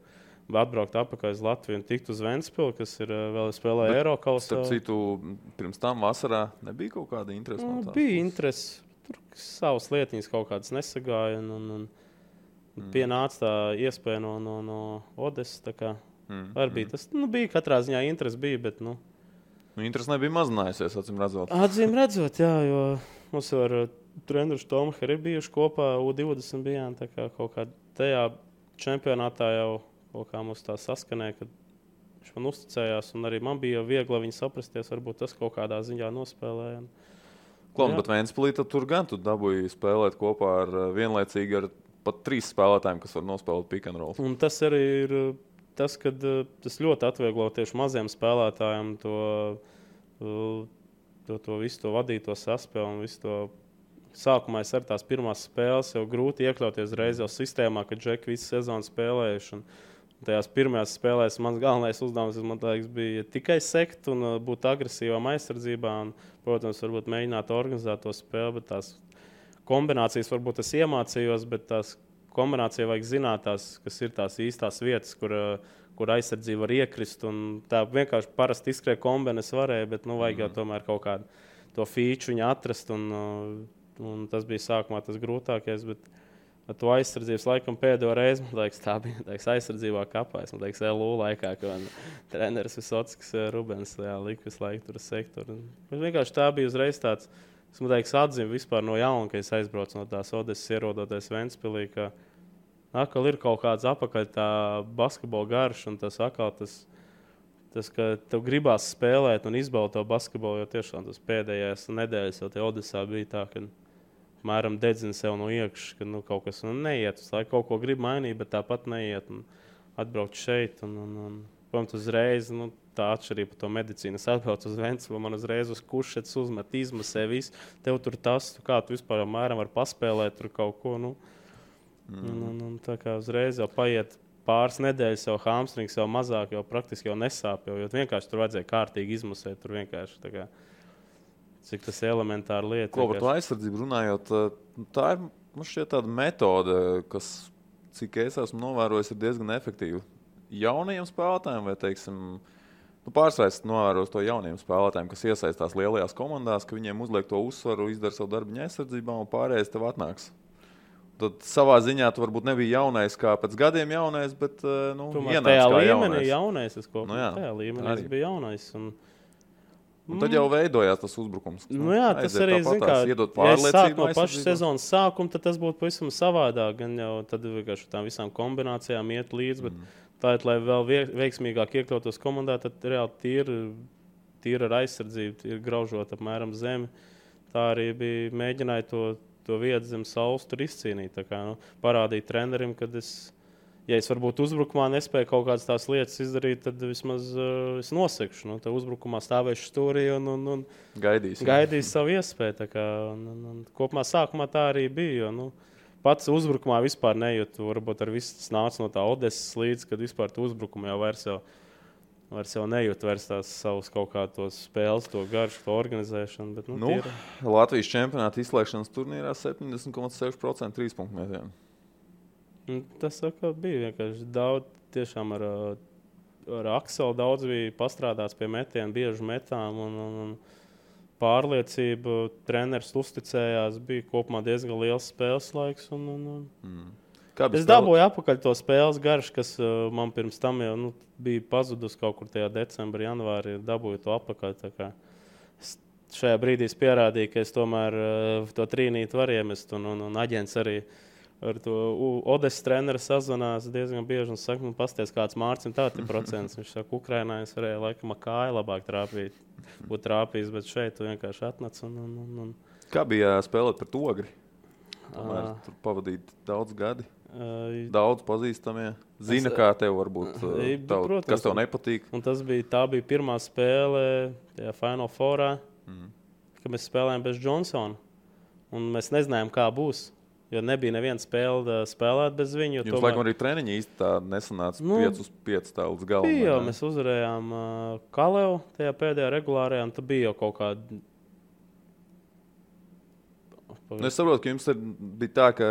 atbraukt atpakaļ uz Latviju un tikt uz Ventspilu, kas ir vēl spēlēja Eirokausā. Starp citu, pirms tam vasarā nebija kaut kāda interese? Bija interese. Tur savas lietiņas kaut kādas nesagāja. Un pienāca tā iespēja no Odesas. Bija tas. Bija katrā ziņā interese bija, bet interese nebija mazinājusies, acīm redzot. Acīm redzot, jā, jo mums ar treneru Tomu arī bijuši kopā U20 bijām. Tā kā kaut kā tajā čempionātā jau kaut kā mums tā saskanēja, kad viņš man uzticējās, un arī man bija viegli viņu saprasties, varbūt tas kaut kādā ziņā nospēlēja. Bet Ventspilī tur gan tu dabūji spēlēt kopā ar vienlaicīgi ar pat 3 spēlētājiem, kas var nospēlēt pick and roll. Un tas arī ir tas, kad tas ļoti atvieglo tieši maziem spēlētājiem to visu to vadīto saspēli un visu to. Sākumā es ar tās pirmās spēles jau grūti iekļauties reiz jau sistēmā, kad džeki visu sezonu spēlējuši. Tajās pirmajās spēlēs mans galvenais uzdevums, man liekas, bija tikai sekt un būt agresīvām aizsardzībā. Un, protams, varbūt mēģināt organizēt to spēli, bet tās kombinācijas varbūt es iemācījos, bet tās kombinācija vajag zināt, kas ir tās īstās vietas, kur aizsardzība var iekrist. Un tā vienkārši parasti izskrēja kombinācijas varēja, bet vajag jau tomēr kaut kādu to feature viņu atrast. Un tas bija sākumā tas grūtākais, bet ar to aizsardzības laikam pēdējo reizi, man liekas, tā bija aizsardzībā kapā. Es domāju, ka LU laikā, kad treneris Visockis Rubens lika visu laiku tur sektoru. Vienkārši tā bija uzreiz tāds, es atzīmu vispār no jauna, ka es aizbraucu no tās Odesas ierodoties Ventspilī, ka atkal ir kaut kāds apakaļ tā basketbola garš un tas atkal tas, ka tev gribās spēlēt un izbaudīt to basketbolu, jo tiešām tas pēdējās nedēļas jau te Odesā bija tā, ka mēram dedzina sev no iekšas, ka kaut kas neiet. Lai kaut ko grib mainīt, bet tāpat neiet. Atbraukt šeit. Protams, uzreiz tā atšķirība par to medicīnu. Es atbraucu uz Ventspilu, man uzreiz uz kušetes uzmet, izmasē visu. Tev tur tas, kā tu vispār mēram var paspēlēt tur kaut ko. Un tā kā uzreiz jau paiet pāris nedēļas, jau hamstrings jau mazāk, jau praktiski jau nesāp. Jo vienkārši tur vajadzēja kārtīgi izmusēt. Tur vienkārši tā kā, cik tas elementāra lieta. Ko par to aizsardzību runājot, tā ir, man šķiet, tāda metode, kas, cik es esmu novērojis, ir diezgan efektīva. Jaunajiem spēlētājiem vai, teiksim, pārsvarā novērojot to jauniem spēlētājiem, kas iesaistās lielajās komandās, ka viņiem uzliek to uzsvaru, izdara savu darbiņu aizsardzībā un pārējais tev atnāks. Tad savā ziņā tu varbūt nebija jaunais kā pēc gadiem jaunais, bet ienāc tajā kā līmenī jaunais. Tajā līmenī arī. Es biju jaunais. Un tad jau veidojās tas uzbrukums. Tas arī iedot pārliecību. No paša sezonas sākuma tad tas būtu pavisam savādāk. Gan jau tad vienkārši tām visām kombinācijām iet līdzi, bet tā ir, lai vēl veiksmīgāk iekļautos komandā, tad reāli tīra ar aizsardzību, ir graužot apmēram zemi. Tā arī bija mēģināja to vietu zem saules tur izcīnīt. Tā kā, parādīt trenerim, kad ja es varbūt uzbrukumā nespēju kaut kādas tās lietas izdarīt, tad vismaz es nosekšu. Tad uzbrukumā stāvēšu stūrī un gaidīšu savu iespēju. Tā kā, kopumā sākumā tā arī bija. Jo, pats uzbrukumā vispār nejūtu. Varbūt ar visu tas nāca no tā Odesas līdz, kad vispār tu uzbrukumā jau vairs jau nejūt tās savus kaut kādos spēles, to garšu, to organizēšanu. Bet, Latvijas čempionāta izslēgšanas turnīrā 70,6% 3-punktu metienu. Tas bija vienkārši daudz, tiešām ar Akselu daudz bija pastrādāts pie metienu, bieži metām un pārliecību. Treneris uzticējās, bija kopumā diezgan liels spēles laiks. Es dabūju atpakaļ to spēles garšu, kas man pirms tam jau bija pazudus kaut kur tajā decembrī, janvārī. Dabūju to atpakaļ. Šajā brīdī es pierādīju, ka es tomēr to trīnīti varu iemest. Un aģents arī ar to Odesas treneru sazvanās diezgan bieži un saka, pasties kāds Mārcis, tādi procents. Viņš saka, Ukrainā es varēju laikam kāju labāk būt trāpījis, bet šeit tu vienkārši atnāc. Kā bija spēlēt pret Ogri? Tomēr tur pavadīt daudz gadi. Daudz pazīstamie. Zina, kā tev varbūt, protams, kas tev nepatīk. Un tā bija pirmā spēle tajā Final Fourā, kad mēs spēlējām bez Johnsona. Un mēs nezinājām, kā būs. Jo nebija neviena spēle spēlēt bez viņu. Jums laikam arī treniņi īsti tā nesanāca 5-5 tā līdz galam. Bija jau, mēs uzvarējām Kalevu tajā pēdējā regulārajā, un tad bija jau kaut kāda. Es saprotu, ka jums bija tā, ka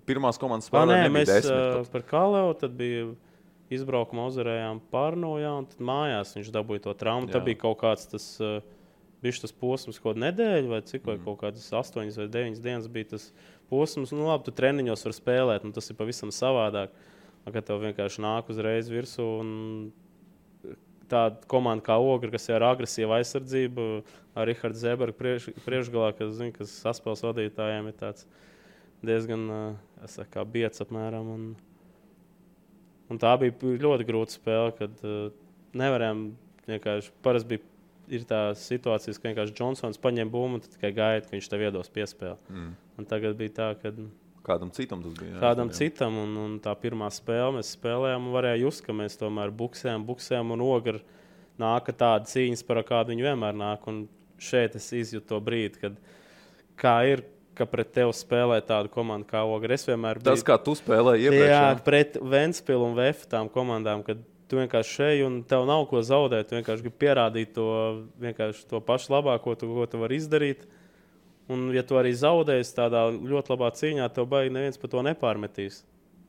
pirmās komandas spēlē nebija 10. Mēs par Kalevu, tad bija izbraukumā uzvarējām Pārnojā, un tad mājās viņš dabūja to traumu. Tad bija kaut kāds tas posms, kaut nedēļu vai cik, vai kaut kādas 8 vai 9 dienas bija tas posms. Labi, tu treniņos var spēlēt, tas ir pavisam savādāk. Kad tev vienkārši nāk uzreiz virsū un tāda komanda kā Ogra, kas ir ar agresīvu aizsardzību, ar Rihardu Zebergu priekšgalā, kas saspēles vadītājiem ir tāds diezgan biets apmēram. Un tā bija ļoti grūta spēle, kad nevarējām vienkārši, parasti ir tā situācijas, ka vienkārši Johnsons paņem bumbu un tad tikai gaida, ka viņš tev iedos piespēli. Un tagad bija tā, ka kādam citam tas bija. Kādam citam, un tā pirmā spēle mēs spēlējām, un varēja just, ka mēs tomēr buksējām, un Ogra nāka tāda cīņas, par kādu viņi vienmēr nāk. Un šeit es izjūtu to brīdi, kad kā ir, ka pret tevi spēlē tādu komandu kā Ogra. Es vienmēr biju... Tas, kā tu spēlēji iepriekš. Jā, pret Ventspilu un VF tām komandām, kad tu vienkārši šeit, un tev nav ko zaudēt, tu vienkārši gribi pierādīt to pašu labāko, ko tu vari izdarīt. Un, ja tu arī zaudēsi tādā ļoti labā cīņā, tev baigi neviens par to nepārmetīs.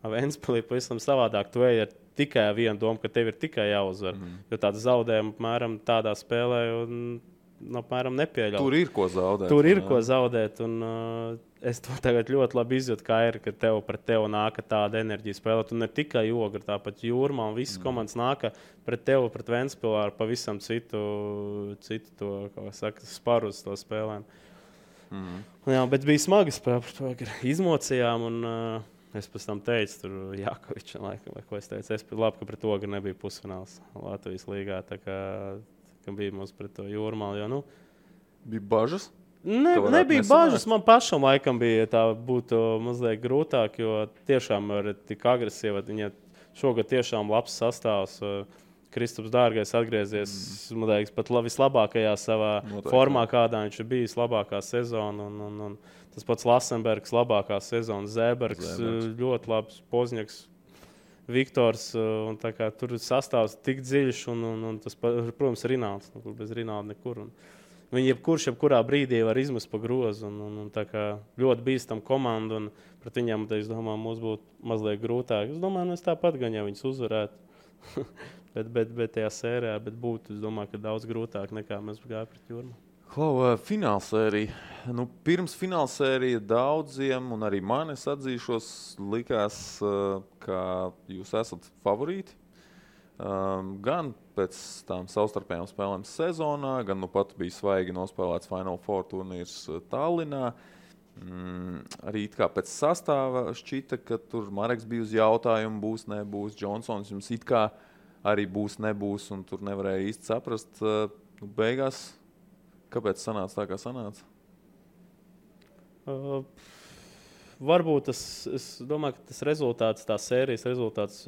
Ventspilī pavisam savādāk. Tu ej ar tikai vienu domu, ka tev ir tikai jāuzvar. Jo tāda zaudējuma apmēram tādā spēlē apmēram nepieļauj. Tur ir ko zaudēt. Tur ir ko zaudēt. Un, es to tagad ļoti labi izjūtu, kā ir, ka pret tevi nāka tāda enerģija spēlēt. Un ne tikai Ogra, tāpat Jūrmā un visas komandas nāka pret tevi, pret Ventspilā ar pavisam citu to, kā saka, sparu uz to spēlēm. Jā, bet bija smagi spēle par to, ka izmocījām, un es pēc tam teicu, tur Jākovičam, laikam, vai ko es teicu. Es labi, ka pret Ogru nebija pusfināls Latvijas līgā, tā kā bija mums pret to Jūrmālu, jo, Bija bažas? Nebija bažas, man pašam laikam bija tā būtu mazliet grūtāk, jo tiešām ir tik agresīva, viņa šogad tiešām labs sastāvs. Kristaps Dārgais atgriezies pat vislabākajā savā formā, kādā viņš ir bijis, labākā sezona. Un Tas pats Lasenbergs, labākā sezona, Zēbergs, ļoti labs, Pozņaks, Viktors. Tur sastāvs tik dziļš, un tas, protams, ir Rinalds. Bez Rinalda nekur. Viņi jebkurā brīdī var izmest pa grozu. Ļoti bīstam komanda, un pret viņiem, es domāju, mums būtu mazliet grūtāk. Es domāju, mēs tāpat gan, ja viņus uzvarētu. bet tajā sērijā būtu, es domāju, ka daudz grūtāk nekā mēs gājām pret Jūrmālu. Finālsērija. Pirms finālsērija daudziem, un arī man, es atzīšos, likās, ka jūs esat favorīti. Gan pēc tām savstarpējām spēlēm sezonā, gan pat bija svaigi nospēlēts Final Four turnīrs Tallinā. Arī kā pēc sastāva šķita, ka tur Mareks bija uz jautājumu, būs, nebūs. Džonsons jums it kā arī būs, nebūs, un tur nevarēja īsti saprast. Beigās, kāpēc sanāca tā, kā sanāca? Varbūt es domāju, ka tas rezultāts, tā sērijas rezultāts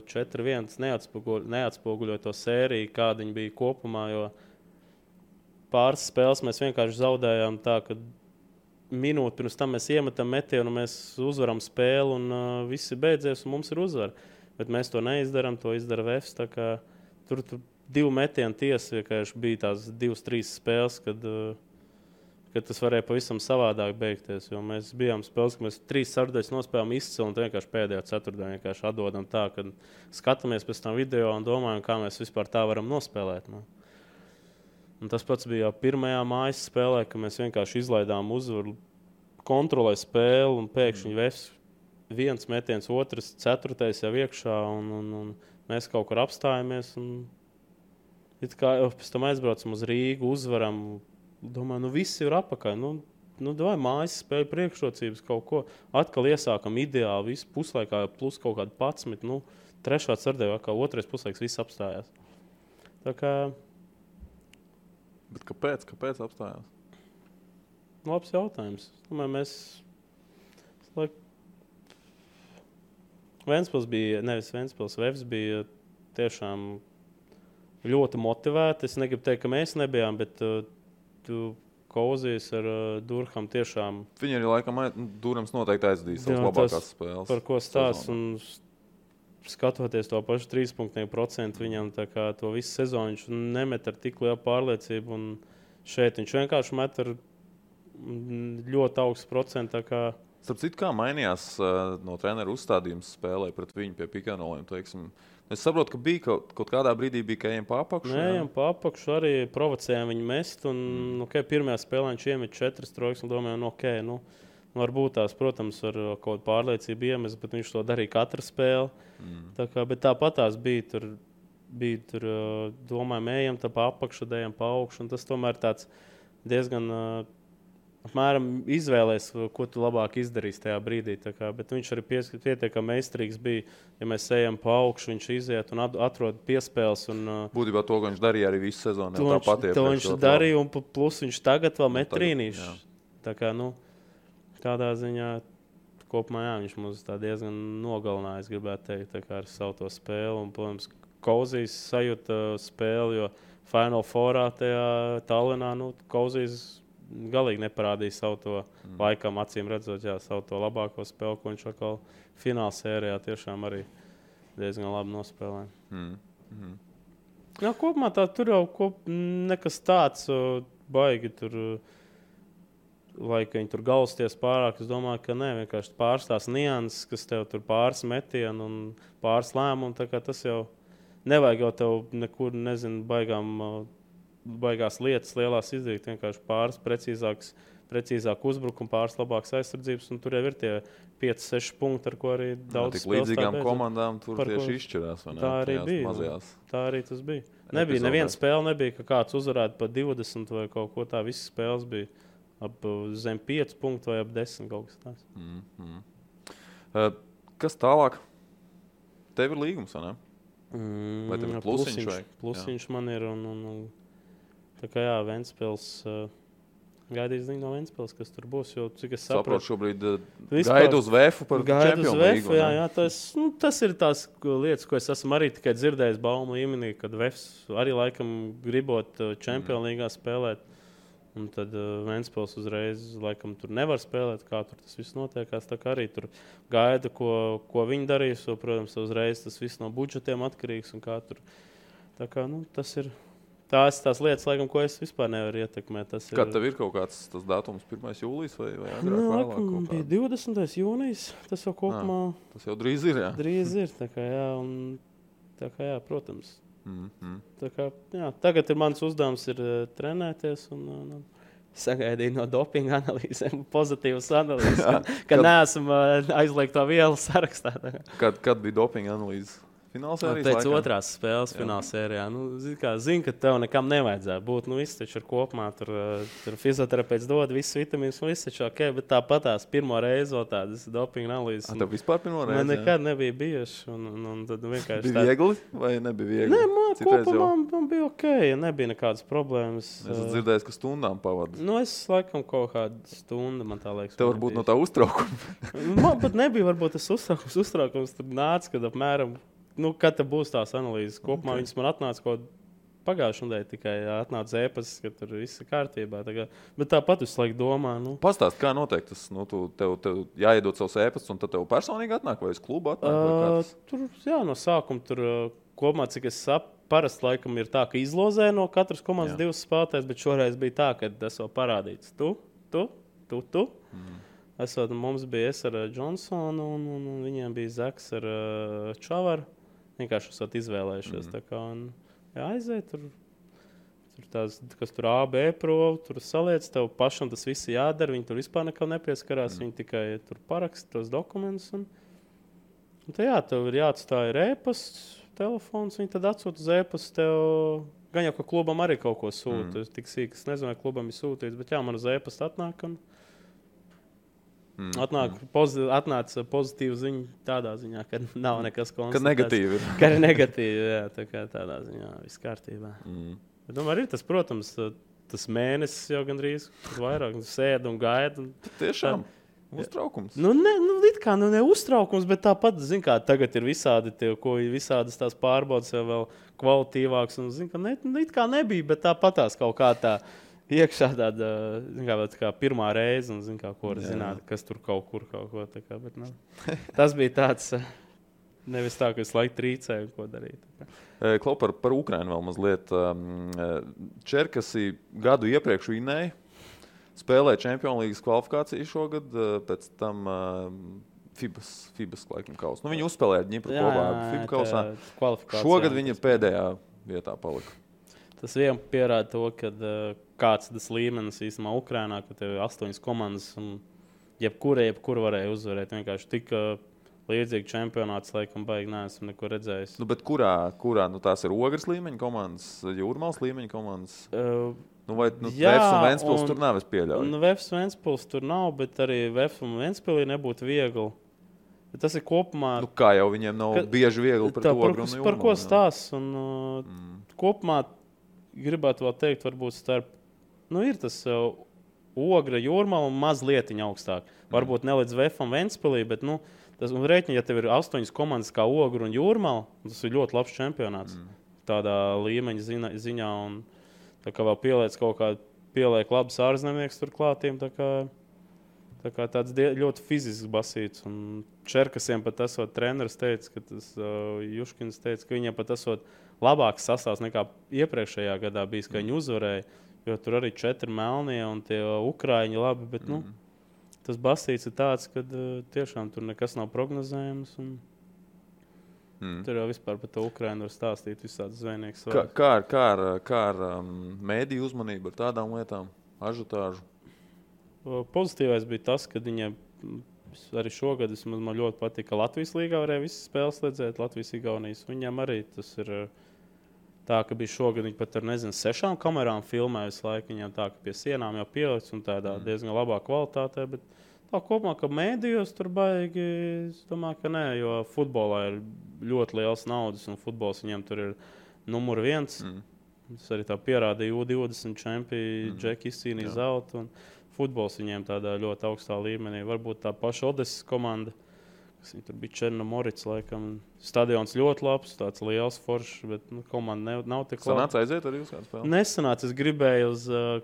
4-1 neatspoguļoja to sēriju, kāda viņa bija kopumā, jo pāris spēles mēs vienkārši zaudējām tā, ka minūti pirms tam mēs iemetam metienu, mēs uzvaram spēli un viss ir beidzies un mums ir uzvara. Bet mēs to neizdaram, to izdara Vefs. Tur 2 metienu tiesa, vienkārši bija tās 2-3 spēles, kad tas varēja pavisam savādāk beigties. Jo mēs bijām spēles, ka mēs 3 ceturdaļas nospēlējām izcili un vienkārši pēdējā ceturtdaļā vienkārši atdodam tā, ka skatāmies pēc tam video un domājam, kā mēs vispār tā varam nospēlēt. Un tas pats bija jau pirmajā mājas spēlē, ka mēs vienkārši izlaidām uzvaru, kontrolēja spēli un pēkšņi Vefs 1 metiens, 2, 4 jau iekšā un mēs kaut kur apstājamies. It kā pēc tam aizbraucam uz Rīgu, uzvaram. Domāju, viss ir apakaļ. Vai mājas spēļu priekšrocības kaut ko. Atkal iesākam ideāli, visu puslaikā plus kaut kādu 11. Trešā ceturtajā, kā otrais puslaiks, viss apstājās. Tā kā... Bet kāpēc apstājās? Labs jautājums. Domāju, mēs... Vefs bija tiešām ļoti motivēti. Es negribu teikt, ka mēs nebijām, bet Kauzijas ar Durham tiešām... Viņi arī laikam Durhams noteikti aizdīs savas labākās spēles. Par ko stāsts un skatoties to pašu 3% viņam to visu sezonu, viņš nemet ar tik lielu pārliecību un šeit viņš vienkārši met ar ļoti augstu procentu. Starp citu, kā mainījās no treneru uzstādījums spēlē pret viņu pie pikanoliem, teiksim? Es saprotu, ka bija kaut kādā brīdī ka ejam pa apakšu. Ejam pa apakšu, arī provocējām viņu mest. Pirmajā spēlē viņš iemet 4 trojkas un domājām, varbūt tās, protams, ar kaut kādu pārliecību iemest, bet viņš to darīja katru spēli. Bet tāpat tās bija tur domājām, ejam tā pa apakšu, ejam pa augšu. Un tas tomēr tāds diezgan... apmēram izvēlēs, ko tu labāk izdarīsi tajā brīdī. Bet viņš arī pietiekami meistarīgs bija. Ja mēs ejam pa augšu, viņš iziet un atrod piespēles. Būtībā to, ko viņš darīja arī visu sezonu. To viņš darīja, un plus viņš tagad vēl met trīnīšu. Tādā ziņā kopumā viņš mums diezgan nogalināja, es gribētu teikt, ar savu to spēli. Un, protams, Kauzijas sajūta spēli, jo Final Fourā tajā Tallinā, Kauzijas galīgi neparādīja savu to laikam, acīm redzot, savu to labāko spēli, ko viņš atkal fināla sērijā tiešām arī diezgan labi nospēlēja. Kopumā tur jau nekas tāds baigi tur, lai viņi tur gausties pārāk. Es domāju, ka ne, vienkārši pāris tās nianses, kas tev tur pāris metienu un pāris lēmumu, tas jau nevajag jau tev nekur, nezinu, baigās lietas lielās izdarīt, vienkārši pāris precīzāk uzbrukumu, pāris labākas aizsardzības, un tur jau ir tie 5-6 punkti, ar ko arī daudz spēles. Tik līdzīgām komandām tur tieši izšķirās, vai ne? Tā arī bija. Mazajās. Tā arī tas bija. Neviena spēle nebija, ka kāds uzvarētu pa 20 vai kaut ko tā. Visas spēles bija ap zem 5 punktu vai ap 10 kaut kas tāds. Kas tālāk? Tev ir līgums, vai ne? Vai tev ir plusiņš? Plusiņš man ir un tā kā Ventspils, gaidīs ziņu no Ventspils, kas tur būs, jo cik es saprotu. Šobrīd gaidu uz Vēfu par čempionu līgu. Jā, tas ir tās lietas, ko es esmu arī tikai dzirdējis baumu līmenī, kad Vēfs arī laikam gribot čempionu līgā spēlēt. Un tad Ventspils uzreiz laikam tur nevar spēlēt, kā tur tas viss notiekās. Tā kā arī tur gaida, ko viņi darīs. Jo, protams, uzreiz tas viss no budžetiem atkarīgs. Un kā tur. Tā kā, tas ir tās lietas, laikam, ko es vispār nevaru ietekmēt. Kā tev ir kaut kāds tas datums 1. jūlijas vai agrāk vēlāk? Bija 20. jūnijas. Tas jau kopumā... Tas jau drīz ir, jā? Drīz ir, tā kā jā. Tā kā jā, protams. Tā kā, jā, tagad mans uzdevums ir trenēties un sagaidīt no dopinga analīzēm pozitīvas analīzes, ka neesmu aizliegto vielu sarakstā. Kad bija dopinga analīzes? Finālsērijas pēc otrās spēles finālsērijā. Zinu, ka tev nekam nevajadzētu būt. Viss taču ir kopumā. Tur fizioterapeits dod visus vitamīnus, un viss taču ok. Bet tāpatās pirmo reizi vēl tādas dopinga analīzes. Tev vispār pirmo reizi? Man nekad nebija bijuši. Un tad vienkārši bija viegli vai nebija viegli? Nē, kopumā man bija ok. Nebija nekādas problēmas. Es esmu dzirdējis, ka stundām pavadu. Es laikam kaut kādu stundu, man tā liekas. Tev varbūt no tā uztraukuma. Man pat nebija varbūt tas uztraukums. Tur nāca, kad apmēram... kad būs tās analīzes kopumā, viņas man atnāca kaut pagājušajā nedēļā tikai atnāca ēpasts, ka tur viss ir kārtībā. Bet tāpat visu laiku domā. Pastāst, kā notiek tas? Tev jāiedod savus ēpastus, un tad tev personīgi atnāk, vai uz klubu atnāk? Tur, no sākuma tur kopumā, cik es parasti laikam ir tā, ka izlozē no katras komandas 2 spēlētājs, bet šoreiz bija tā, ka tas vēl parādīts. Tu. Mums bija es ar Johnsonu, un viņiem bija Zaks ar Čavaru. Vienkārši esat izvēlējušies. Tā kā aiziet tur tās, kas tur A, B provu, tur saliec, tev pašam tas viss jādara. Viņi tur vispār nekam nepieskarās. Viņi tikai tur paraksta tos dokumentus. Un tev ir jāatstāj e-pasts, telefons. Viņi tad atsūta uz e-pastu tev. Gan jau, ka klubam arī kaut ko sūta. Tik sīk, es nezinu, vai klubam ir sūtīts, bet man uz e-pastu atnāk. Atnāca pozitīva ziņa tādā ziņā, ka nav nekas konstatēts. Ka negatīvi ir. Ka ir negatīvi, jā, tā kā tādā ziņā viss kārtībā. Bet arī tas, protams, tas mēnesis jau gandrīz vairāk sēd un gaida. Tiešām uztraukums. It kā ne uztraukums, bet tāpat, kā tagad ir visādas tās pārbaudas jau vēl kvalitīvāks. Un, it kā nebija, bet tāpatās kaut kā tā. Iekšā tāda kā pirmā reize, un ko var zināt, kas tur kaut ko. Bet, tas bija tāds, nevis tā, ka es laiku trīcēju, ko darīt. Klau, par Ukrainu vēl mazliet. Čerkasi gadu iepriekš vinēja, spēlēja Champions League kvalifikāciju šogad, pēc tam FIBAS laikam kausa. Viņi uzspēlēja Ņipru kopā FIBA kausā. Šogad viņa pēdējā vietā palika. Tas vien pierāda to, ka kāds tas līmenis īstenībā Ukrainā, ka tev ir 8 komandas un jebkura varēja uzvarēt. Vienkārši tik līdzīgi čempionāts, laikam, baigi neesmu neko redzējis. Bet kurā tās ir Ogres līmeņa komandas, Jūrmālas līmeņa komandas? Vefs un Ventspils tur nav, es pieļauju. Vefs un Ventspils tur nav, bet arī Vefs un Ventspilī nebūtu viegli. Bet tas ir kopumā... Kā jau viņiem nav bieži viegli pret Ogru un Jūrmālu. Par ko stāsts? Kopumā gribētu vēl teikt, varbūt starp... ir tas Ogra, Jūrmala un mazlietiņa augstāk. Varbūt ne līdz Vefam Ventspilī, bet rēķini, ja tev ir 8 komandas kā Ogra un Jūrmala, tas ir ļoti labs čempionāts. Tādā līmeņa ziņā. Un tā kā vēl pieliek labs ārzemnieks tur klātiem, tā kā tāds ļoti fizisks basīts. Un Čerkasiem pat esot treneris teica, ka tas Juškins teica, ka viņiem pat esot labāks sastāvs nekā iepriekšējā gadā bijis, ka viņi uzvarēja. Jo tur arī 4 melnie un tie Ukraiņi labi, bet tas basīts ir tāds, ka tiešām tur nekas nav prognozējams. Tur jau vispār par to Ukrainu var stāstīt visādi zvejnieks. Kā ar mēdīju uzmanību ar tādām lietām, ažiotāžu? Pozitīvais bija tas, ka viņiem arī šogad man ļoti patika, ka Latvijas līgā varēja visas spēles redzēt, Latvijas-Igaunijas. Viņiem arī tas ir... Tā, ka bija šogad viņi pat ar 6 kamerām filmē visu laiku. Viņam tā, ka pie sienām jau pielikts un tādā diezgan labā kvalitātē. Bet tā kopumā, ka mēdījos tur baigi, es domāju, ka nē, jo futbolā ir ļoti liels naudas un futbols viņam tur ir numur 1. Tas arī tā pierādīja U20 čempioni, Džeki izcīnīja zeltu. Un futbols viņiem tādā ļoti augstā līmenī. Varbūt tā paša Odesas komanda, kas viņi tur bija Černomorits, laikam. Stadions ļoti labs, tāds liels foršs, bet komanda nav tik laba. Sanāca aiziet arī uz kādu spēli? Nesanāca, es gribēju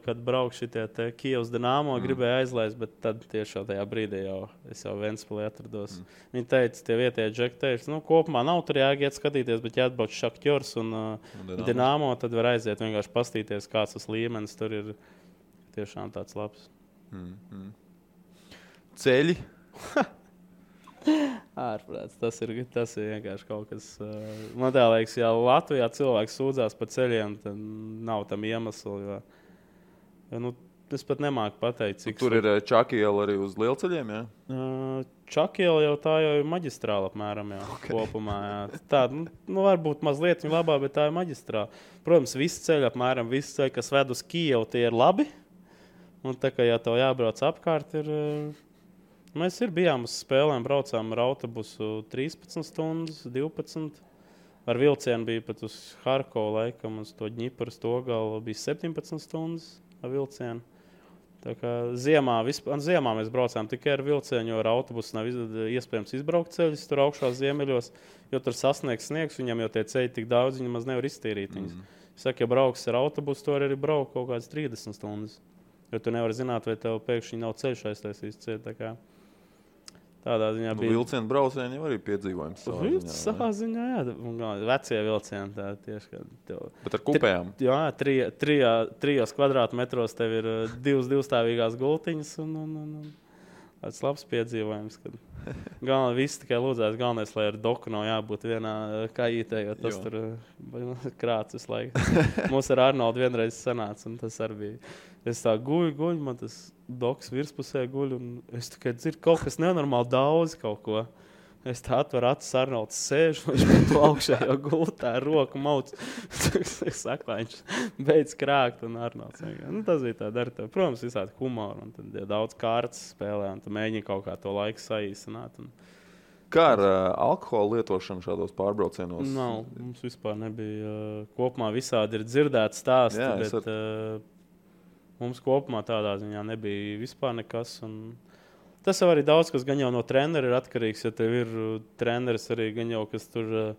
kad braukšu šitie te Kijevs Dinamo, gribēju aizlaist, bet tad tieši tajā brīdī es jau Ventspilī atrados. Viņi teica, tie vietējie džeki teica, kopumā nav tur jāiet skatīties, bet jāatbrauc Šaktjors un Dinamo, tad var aiziet vienkārši pastīties, kāds tas līmenis tur ir tiešām tāds labs. Ceļi? Ārprāts, tas ir vienkārši kaut kas. Man tā liekas, ja Latvijā cilvēks sūdzās par ceļiem, tad nav tam iemeslu. Es pat nemāku pateikt, cik. Tur ir Čakiela arī uz lielceļiem, jā? Čakiela jau tā jau ir maģistrāla apmēram, jā, kopumā. Jā. Tā, varbūt mazliet viņa labā, bet tā ir maģistrāla. Protams, visi ceļi apmēram, visi ceļi, kas ved uz Kijevu, tie ir labi. Un tā kā, ja tev jābrauc apkārt, ir. Mēs bijām uz spēlēm, braucām ar autobusu 13 stundas, 12. Ar vilcienu bija pat uz Harkovu laikam, uz to Ņipras Togalu bija 17 stundas ar vilcienu. Tā kā ziemā mēs braucām tikai ar vilcienu, jo ar autobusu nav iespējams izbraukt ceļus tur augšā ziemeļos, jo tur sasniegs sniegs, viņam jau tie ceļi tik daudz, viņi maz nevar iztīrīt viņus. Es saku, ja brauks ar autobusu, to arī braukt kaut kādas 30 stundas, jo tu nevari zināt, vai tev pēkšņi nav ceļš aiztaisīs ceļu, tā kā. Tādā ziņā bija. Vilcienu braucieni jau arī piedzīvojums. Savā ziņā, jā. Vecie vilcieni tā tieši. Bet ar kupējām? Jā, 3 kvadrātmetros tev ir 2 divstāvīgās gultiņas un tāds labs piedzīvojums. Galvenais viss tikai lūdzās, galvenais, lai ar doku nav jābūt vienā kājītē, jo tas tur krāts visu laiku. Mums ar Arnoldu vienreiz sanāca, un tas arī bija. Es tā guļu, man tas doks virspusē guļ, un es tikai dzirdu kaut kas nenormāli daudz kaut ko. Es tā atveru acis, Arnolds sēž, viņš man to augšā jau gultā, roku mauc. Es saku, lai viņš beidz krākt, un Arnolds. Tas bija tā dar tev. Protams, visādi humoru, un tad daudz kārtas spēlē, un tu mēģini kaut kā to laiku saīsināt. Kā ar alkoholu lietošanu šādos pārbraucienos? Nav, mums vispār nebija. Kopumā visādi ir dzirdēts stāsti, bet mums kopumā tādā ziņā nebija vispār nekas. Tas jau arī daudz, kas gan jau no trenera ir atkarīgs, ja tev ir treneris arī gan jau, kas tur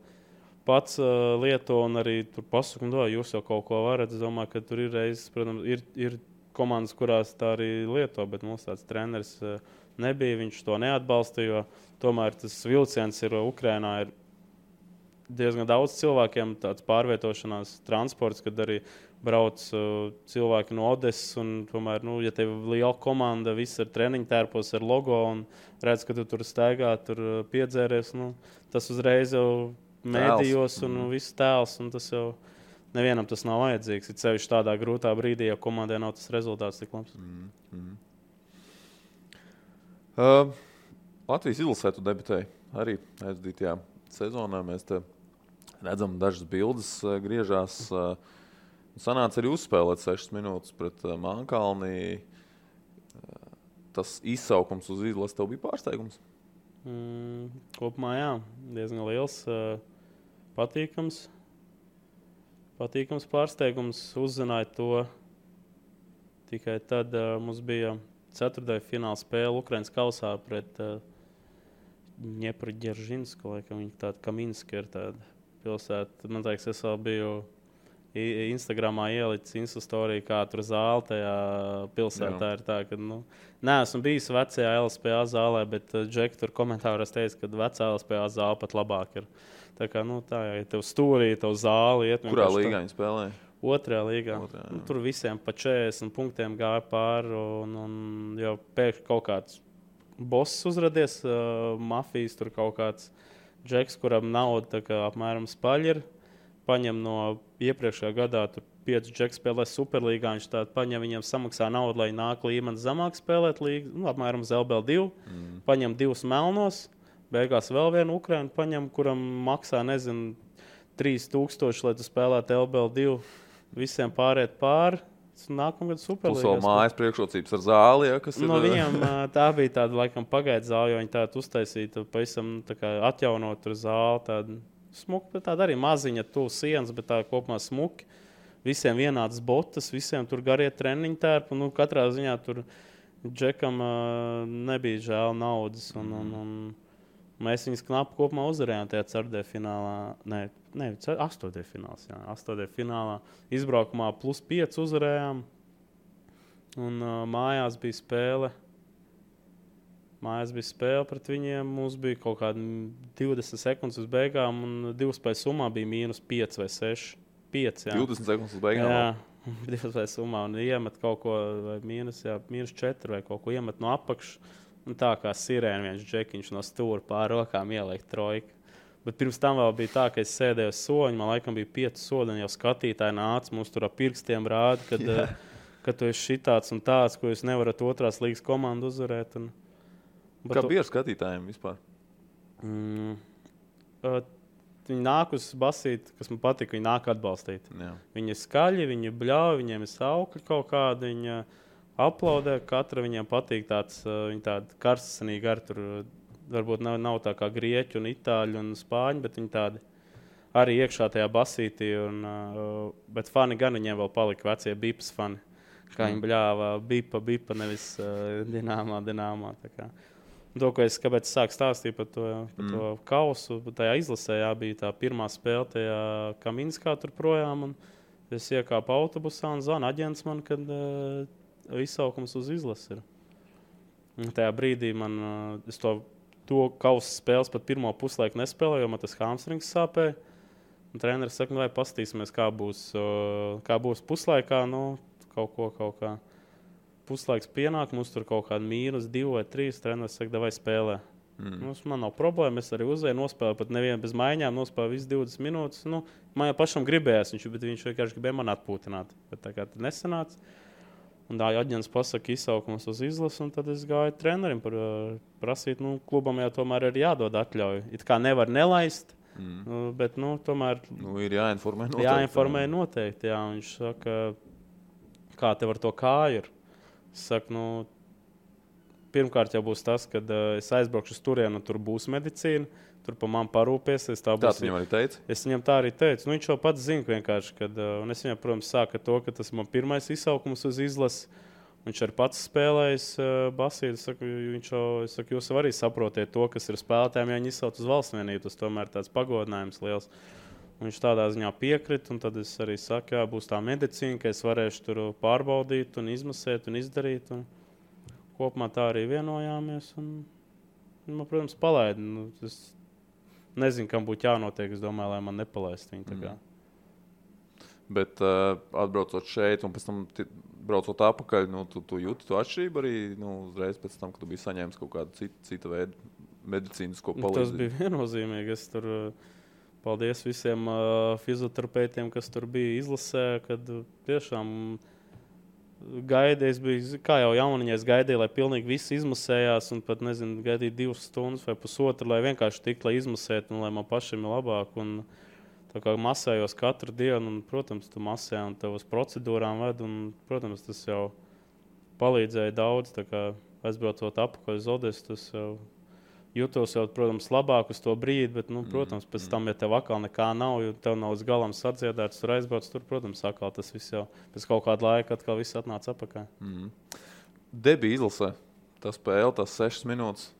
pats lieto un arī tur pasaka, jūs jau kaut ko varat. Es domāju, ka tur ir reizes, protams, ir komandas, kurās tā arī lieto, bet mums tāds treneris nebija, viņš to neatbalsta, jo tomēr tas vilciens ir Ukrainā ir diezgan daudz cilvēkiem tāds pārvietošanās transports, kad arī brauc cilvēki no Odesas, un tomēr, ja tev ir liela komanda, viss ar treniņu tērpos, ar logo, un redz, ka tu tur staigā, tur piedzēries, tas uzreiz jau mēdījos un viss tēls, un tas jau nevienam tas nav vajadzīgs. Ir sevišķi tādā grūtā brīdī, ja komandai nav tas rezultāts tik labs. Latvijas izlasē tu debitēji arī aizdītajā sezonā. Mēs te redzam dažas bildes griežās. Sanāca arī uzspēlēt 6 minūtes pret Mānkalni. Tas izsaukums uz izlasi tev bija pārsteigums? Kopumā jā, diezgan liels, patīkams pārsteigums. Uzzināja to tikai tad mums bija ceturtajā fināla spēle Ukrainas kausā pret Ņepru-Ģeržinsko, laikam viņa tāda Kaminska ir tāda pilsēta. Man liekas, es vēl biju Instagramā ielicis Instastoriju, kā tur zāle tajā pilsētā ir tā, ka, neesmu bijis vecajā LSPA zālē, bet Džeki tur komentāros teica, ka vecā LSPA zāle pat labāk ir. Tā kā, tā, ja tev stūrī, tev zāli iet. Kurā līgā viņi spēlēja? Otrajā līgā. Tur visiem pa 40 punktiem gāja pāri, un jau pēkšņi kaut kāds boss uzradies, mafijas tur kaut kāds Džeks, kuram nauda apmēram spaļi ir. Paņem no iepriekšējā gadā 5 džeki spēlē Superlīgā, viņš tādu paņem, viņiem samaksā naudu, lai nāk līmenis zemāk spēlēt līgu, apmēram uz LBL2, paņem 2 melnos, beigās vēl vienu Ukrainu paņem, kuram maksā, 3000, lai tu spēlētu LBL2, visiem pāriet pāri, nākamgad Superlīgā. Plus vēl mājas priekšrocības ar zāli, ja, kas ir... No viņiem tā bija tāda, laikam, pagaida zāli, jo viņi tādu uztaisītu, pavisam tā kā atjaunot tur zāli, tādu smuki, bet tāda arī maziņa tuvu sienas, bet tā kopumā smuki. Visiem vienādas botas, visiem tur garie treniņu tērpi. Katrā ziņā tur Džekam nebija žēl naudas. Mēs viņus knapi kopumā uzvarējām tajā ceturtdienfinālā. Nē, astoņdienfināls. Astoņdienfinālā izbraukumā +5 uzvarējām. Un mājās bija spēle. Mājās bija spēle pret viņiem. Mums bija kaut kādi 20 sekundes uz beigām, un 2 spēļu summā bija -5 vai 6. 5, jā. 20 sekundes uz beigām? Jā, 2 spēļu summā. Un iemet kaut ko, vai -4 vai kaut ko iemet no apakšas. Un tā kā sirēna viens džekiņš no stūra pār rokām ieliek trojku. Bet pirms tam vēl bija tā, ka es sēdēju uz soļa. Man laikam bija 5 soļi, un jau skatītāji nāca. Mums tur ar pirkstiem rāda, ka tu esi šitāds un tāds, ko jūs nevarat otrās līgas komandu uzvarēt. Kā bija ar skatītājiem vispār? Viņi nāk uz basīti, kas man patīk, viņi nāk atbalstīt. Jā. Viņi ir skaļi, viņi ir bļauji, viņiem ir saukļi kaut kādi. Viņi aplaudē, katra viņiem patīk tāds, viņi tādi karstasinīgi ar tur, varbūt nav tā kā grieķi un itāļi un spāņi, bet viņi tādi arī iekšā tajā basītī. Bet fani gan viņiem vēl palika vecie bipas fani. Kā viņi bļāva bipa, nevis dināmā. Tā kā. To, ko kāpēc es sāku stāstīt par to kausu, tajā izlasē bija tā pirmā spēle tajā Kaminskā tur projām. Un es iekāpu autobusā un zvanu aģents man, kad izsaukums uz izlasi ir. Un tajā brīdī es to kausu spēles pat pirmo puslaiku nespēlēju, jo man tas hamstrings sāpēja. Un treneris saka, vai pastīsimies, kā būs puslaikā. Kaut kā. Puslaiks pienāk, mums tur kaut kāda -2 vai 3. Treneris saka, vai spēlē. Man nav problēma, es arī uzvēju, nospēlēju pat nevienu bez maiņām, nospēlēju visas 20 minūtes. Man jau pašam gribējās, bet viņš vienkārši gribēja man atpūtināt. Bet tā kā tad nesanāca. Un tā aģents pasaka izsaukums uz izlasi, un tad es gāju trenerim prasīt, klubam jau tomēr ir jādod atļauju. It kā nevar nelaist, bet tomēr ir jāinformē noteikti. Jāinformē noteikti, jā. Un viņš saka, kā tev ar to kāju ir? Es saku, pirmkārt jau būs tas, kad es aizbraukšu uz turienu, un tur būs medicīna. Tur pa man parūpēsies. Tā viņam arī teica? Es viņam tā arī teicu. Viņš jau pats zina vienkārši, un es viņam, protams, sāku ar to, ka tas ir man pirmais izsaukums uz izlasi. Viņš arī pats spēlējis basīti. Es saku, jūs arī saprotiet to, kas ir spēlētājiem, ja viņi izsauc uz valsts vienību. Tas tomēr tāds pagodinājums liels. Un viņš tādā ziņā piekrita, un tad es arī saku, jā, būs tā medicīna, ka es varēšu tur pārbaudīt un izmasēt un izdarīt. Un kopumā tā arī vienojāmies. Un, protams, palaidu. Es nezinu, kam būtu jānotiek. Es domāju, lai man nepalaist viņu. Bet atbraucot šeit un pēc tam braucot atpakaļ, tu jūti to atšķirību arī uzreiz pēc tam, kad tu biji saņēmis kaut kādu citu veidu medicīnisko palīdzību? Tas bija viennozīmīgi. Es tur paldies visiem fizioterapeitiem, kas tur bija izlasē, kad tiešām gaidīju, es biju, kā jau jauniņā, es gaidīju, lai pilnīgi viss izmasējās un pat, gaidīju 2 stundas vai pusotru, lai vienkārši tiktu, lai izmasētu un lai man pašiem ir labāk. Un tā kā masējos katru dienu, un, protams, tu masē un tev uz procedūrām ved, un, protams, tas jau palīdzēja daudz, tā kā aizbraucot apakaļ uz Odesu, tas jau jūtos jau, protams, labāk uz to brīdi, bet, protams, pēc tam, ja tev atkal nekā nav, jo tev nav uz galam sadziedēts, tur aizbrauc, tur, protams, atkal tas viss jau pēc kaut kāda laika atkal viss atnāca apakaļ. Debija izlasē, tā spēle, tās 6 minūtes.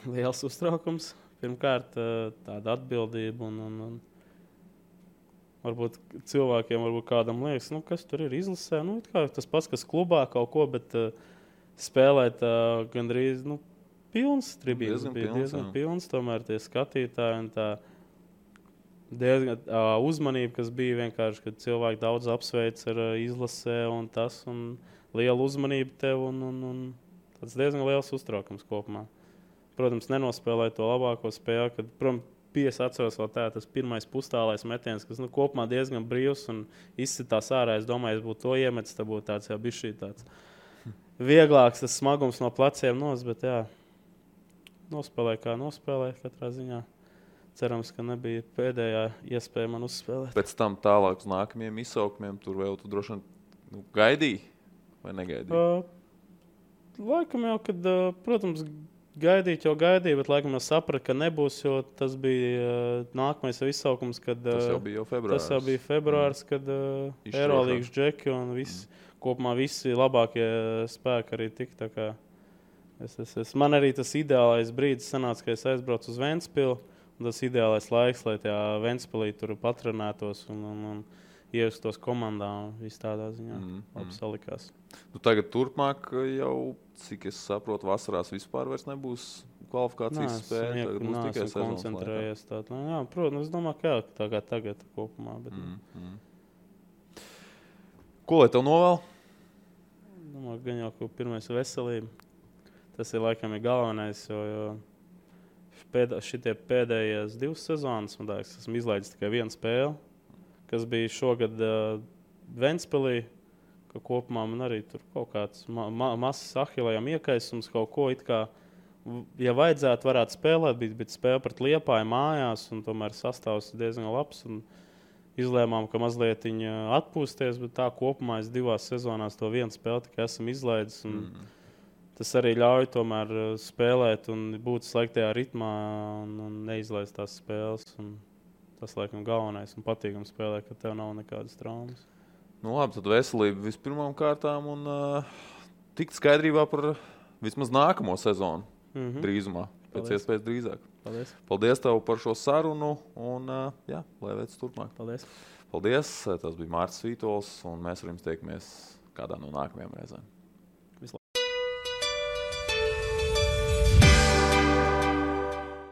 Liels uztraukums. Pirmkārt, tāda atbildība un varbūt cilvēkiem, varbūt kādam liekas, kas tur ir izlasē. Tas pats, kas klubā kaut ko, bet spēlēt gandrīz, pilns tribīnes bija diezgan pilns, tomēr tie skatītāji un tā diezgan uzmanība, kas bija vienkārši, kad cilvēki daudz apsveic ar izlasē un tas, un liela uzmanība tev un tāds diezgan liels uztraukums kopumā. Protams, nenospēlēja to labāko spēli, kad, protams, es atceros vēl tas pirmais pustālais metiens, kas kopumā diezgan brīvs un izsitās ārā. Es domāju, es būtu to iemetis, tad būtu tāds jau bišķī tāds vieglāks, tas smagums no pleciem bet jā, nospēlēja kā nospēlēja katrā ziņā. Cerams, ka nebija pēdējā iespēja man uzspēlēt. Pēc tam tālāk uz nākamajiem izsaukumiem tur vēl tu droši vien gaidīji vai negaidīji? Laikam jau, kad, protams, gaidīt jau gaidīju, bet laikam jau sapratu, ka nebūs, jo tas bija nākamais izsaukums, kad tas jau bija februārs, kad Eirolīgas džeki un kopumā visi labākie spēki arī tika. Tā kā Man arī tas ideālais brīdis sanāca, ka es aizbraucu uz Ventspilu. Tas ideālais laiks, lai tajā Ventspilī tur patrenētos un ievestos komandā. Viss tādā ziņā labi salikās. Tagad turpmāk jau, cik es saprotu, vasarās vispār vairs nebūs kvalifikācijas spēle. Tagad būs tikai sezonas koncentrējies. Protams, es domāju, ka tā kā tagad kopumā. Bet... Ko lai tev novēl? Domāju, gan jau, ka pirmais veselība. Tas ir laikam galvenais, jo šitie pēdējās 2 sezonas, man liekas, esmu izlaidis tikai 1 spēli, kas bija šogad Ventspilī, ka kopumā man arī tur kaut kāds masas ahilējām iekaisums, kaut ko it kā, ja vajadzētu, varētu spēlēt, bet spēle pret Liepāju mājās, un tomēr sastāvs diezgan labs, un izlēmām, ka mazliet atpūsties, bet tā kopumā es 2 sezonās to 1 spēli tikai esmu izlaidis, un tas arī ļauj tomēr spēlēt un būt slēgtajā ritmā un neizlaist tās spēles. Un tas, laikam, galvenais un patīkam spēlē, ka tev nav nekādas traumas. Labi, tad veselība vispirmām kārtām un tikt skaidrībā par vismaz nākamo sezonu drīzumā, pēc iespējas drīzāk. Paldies. Paldies tev par šo sarunu un lai veic turpmāk. Paldies. Paldies, tas bija Mārcis Vītols un mēs ar jums tiekamies kādā no nākamajām reizēm.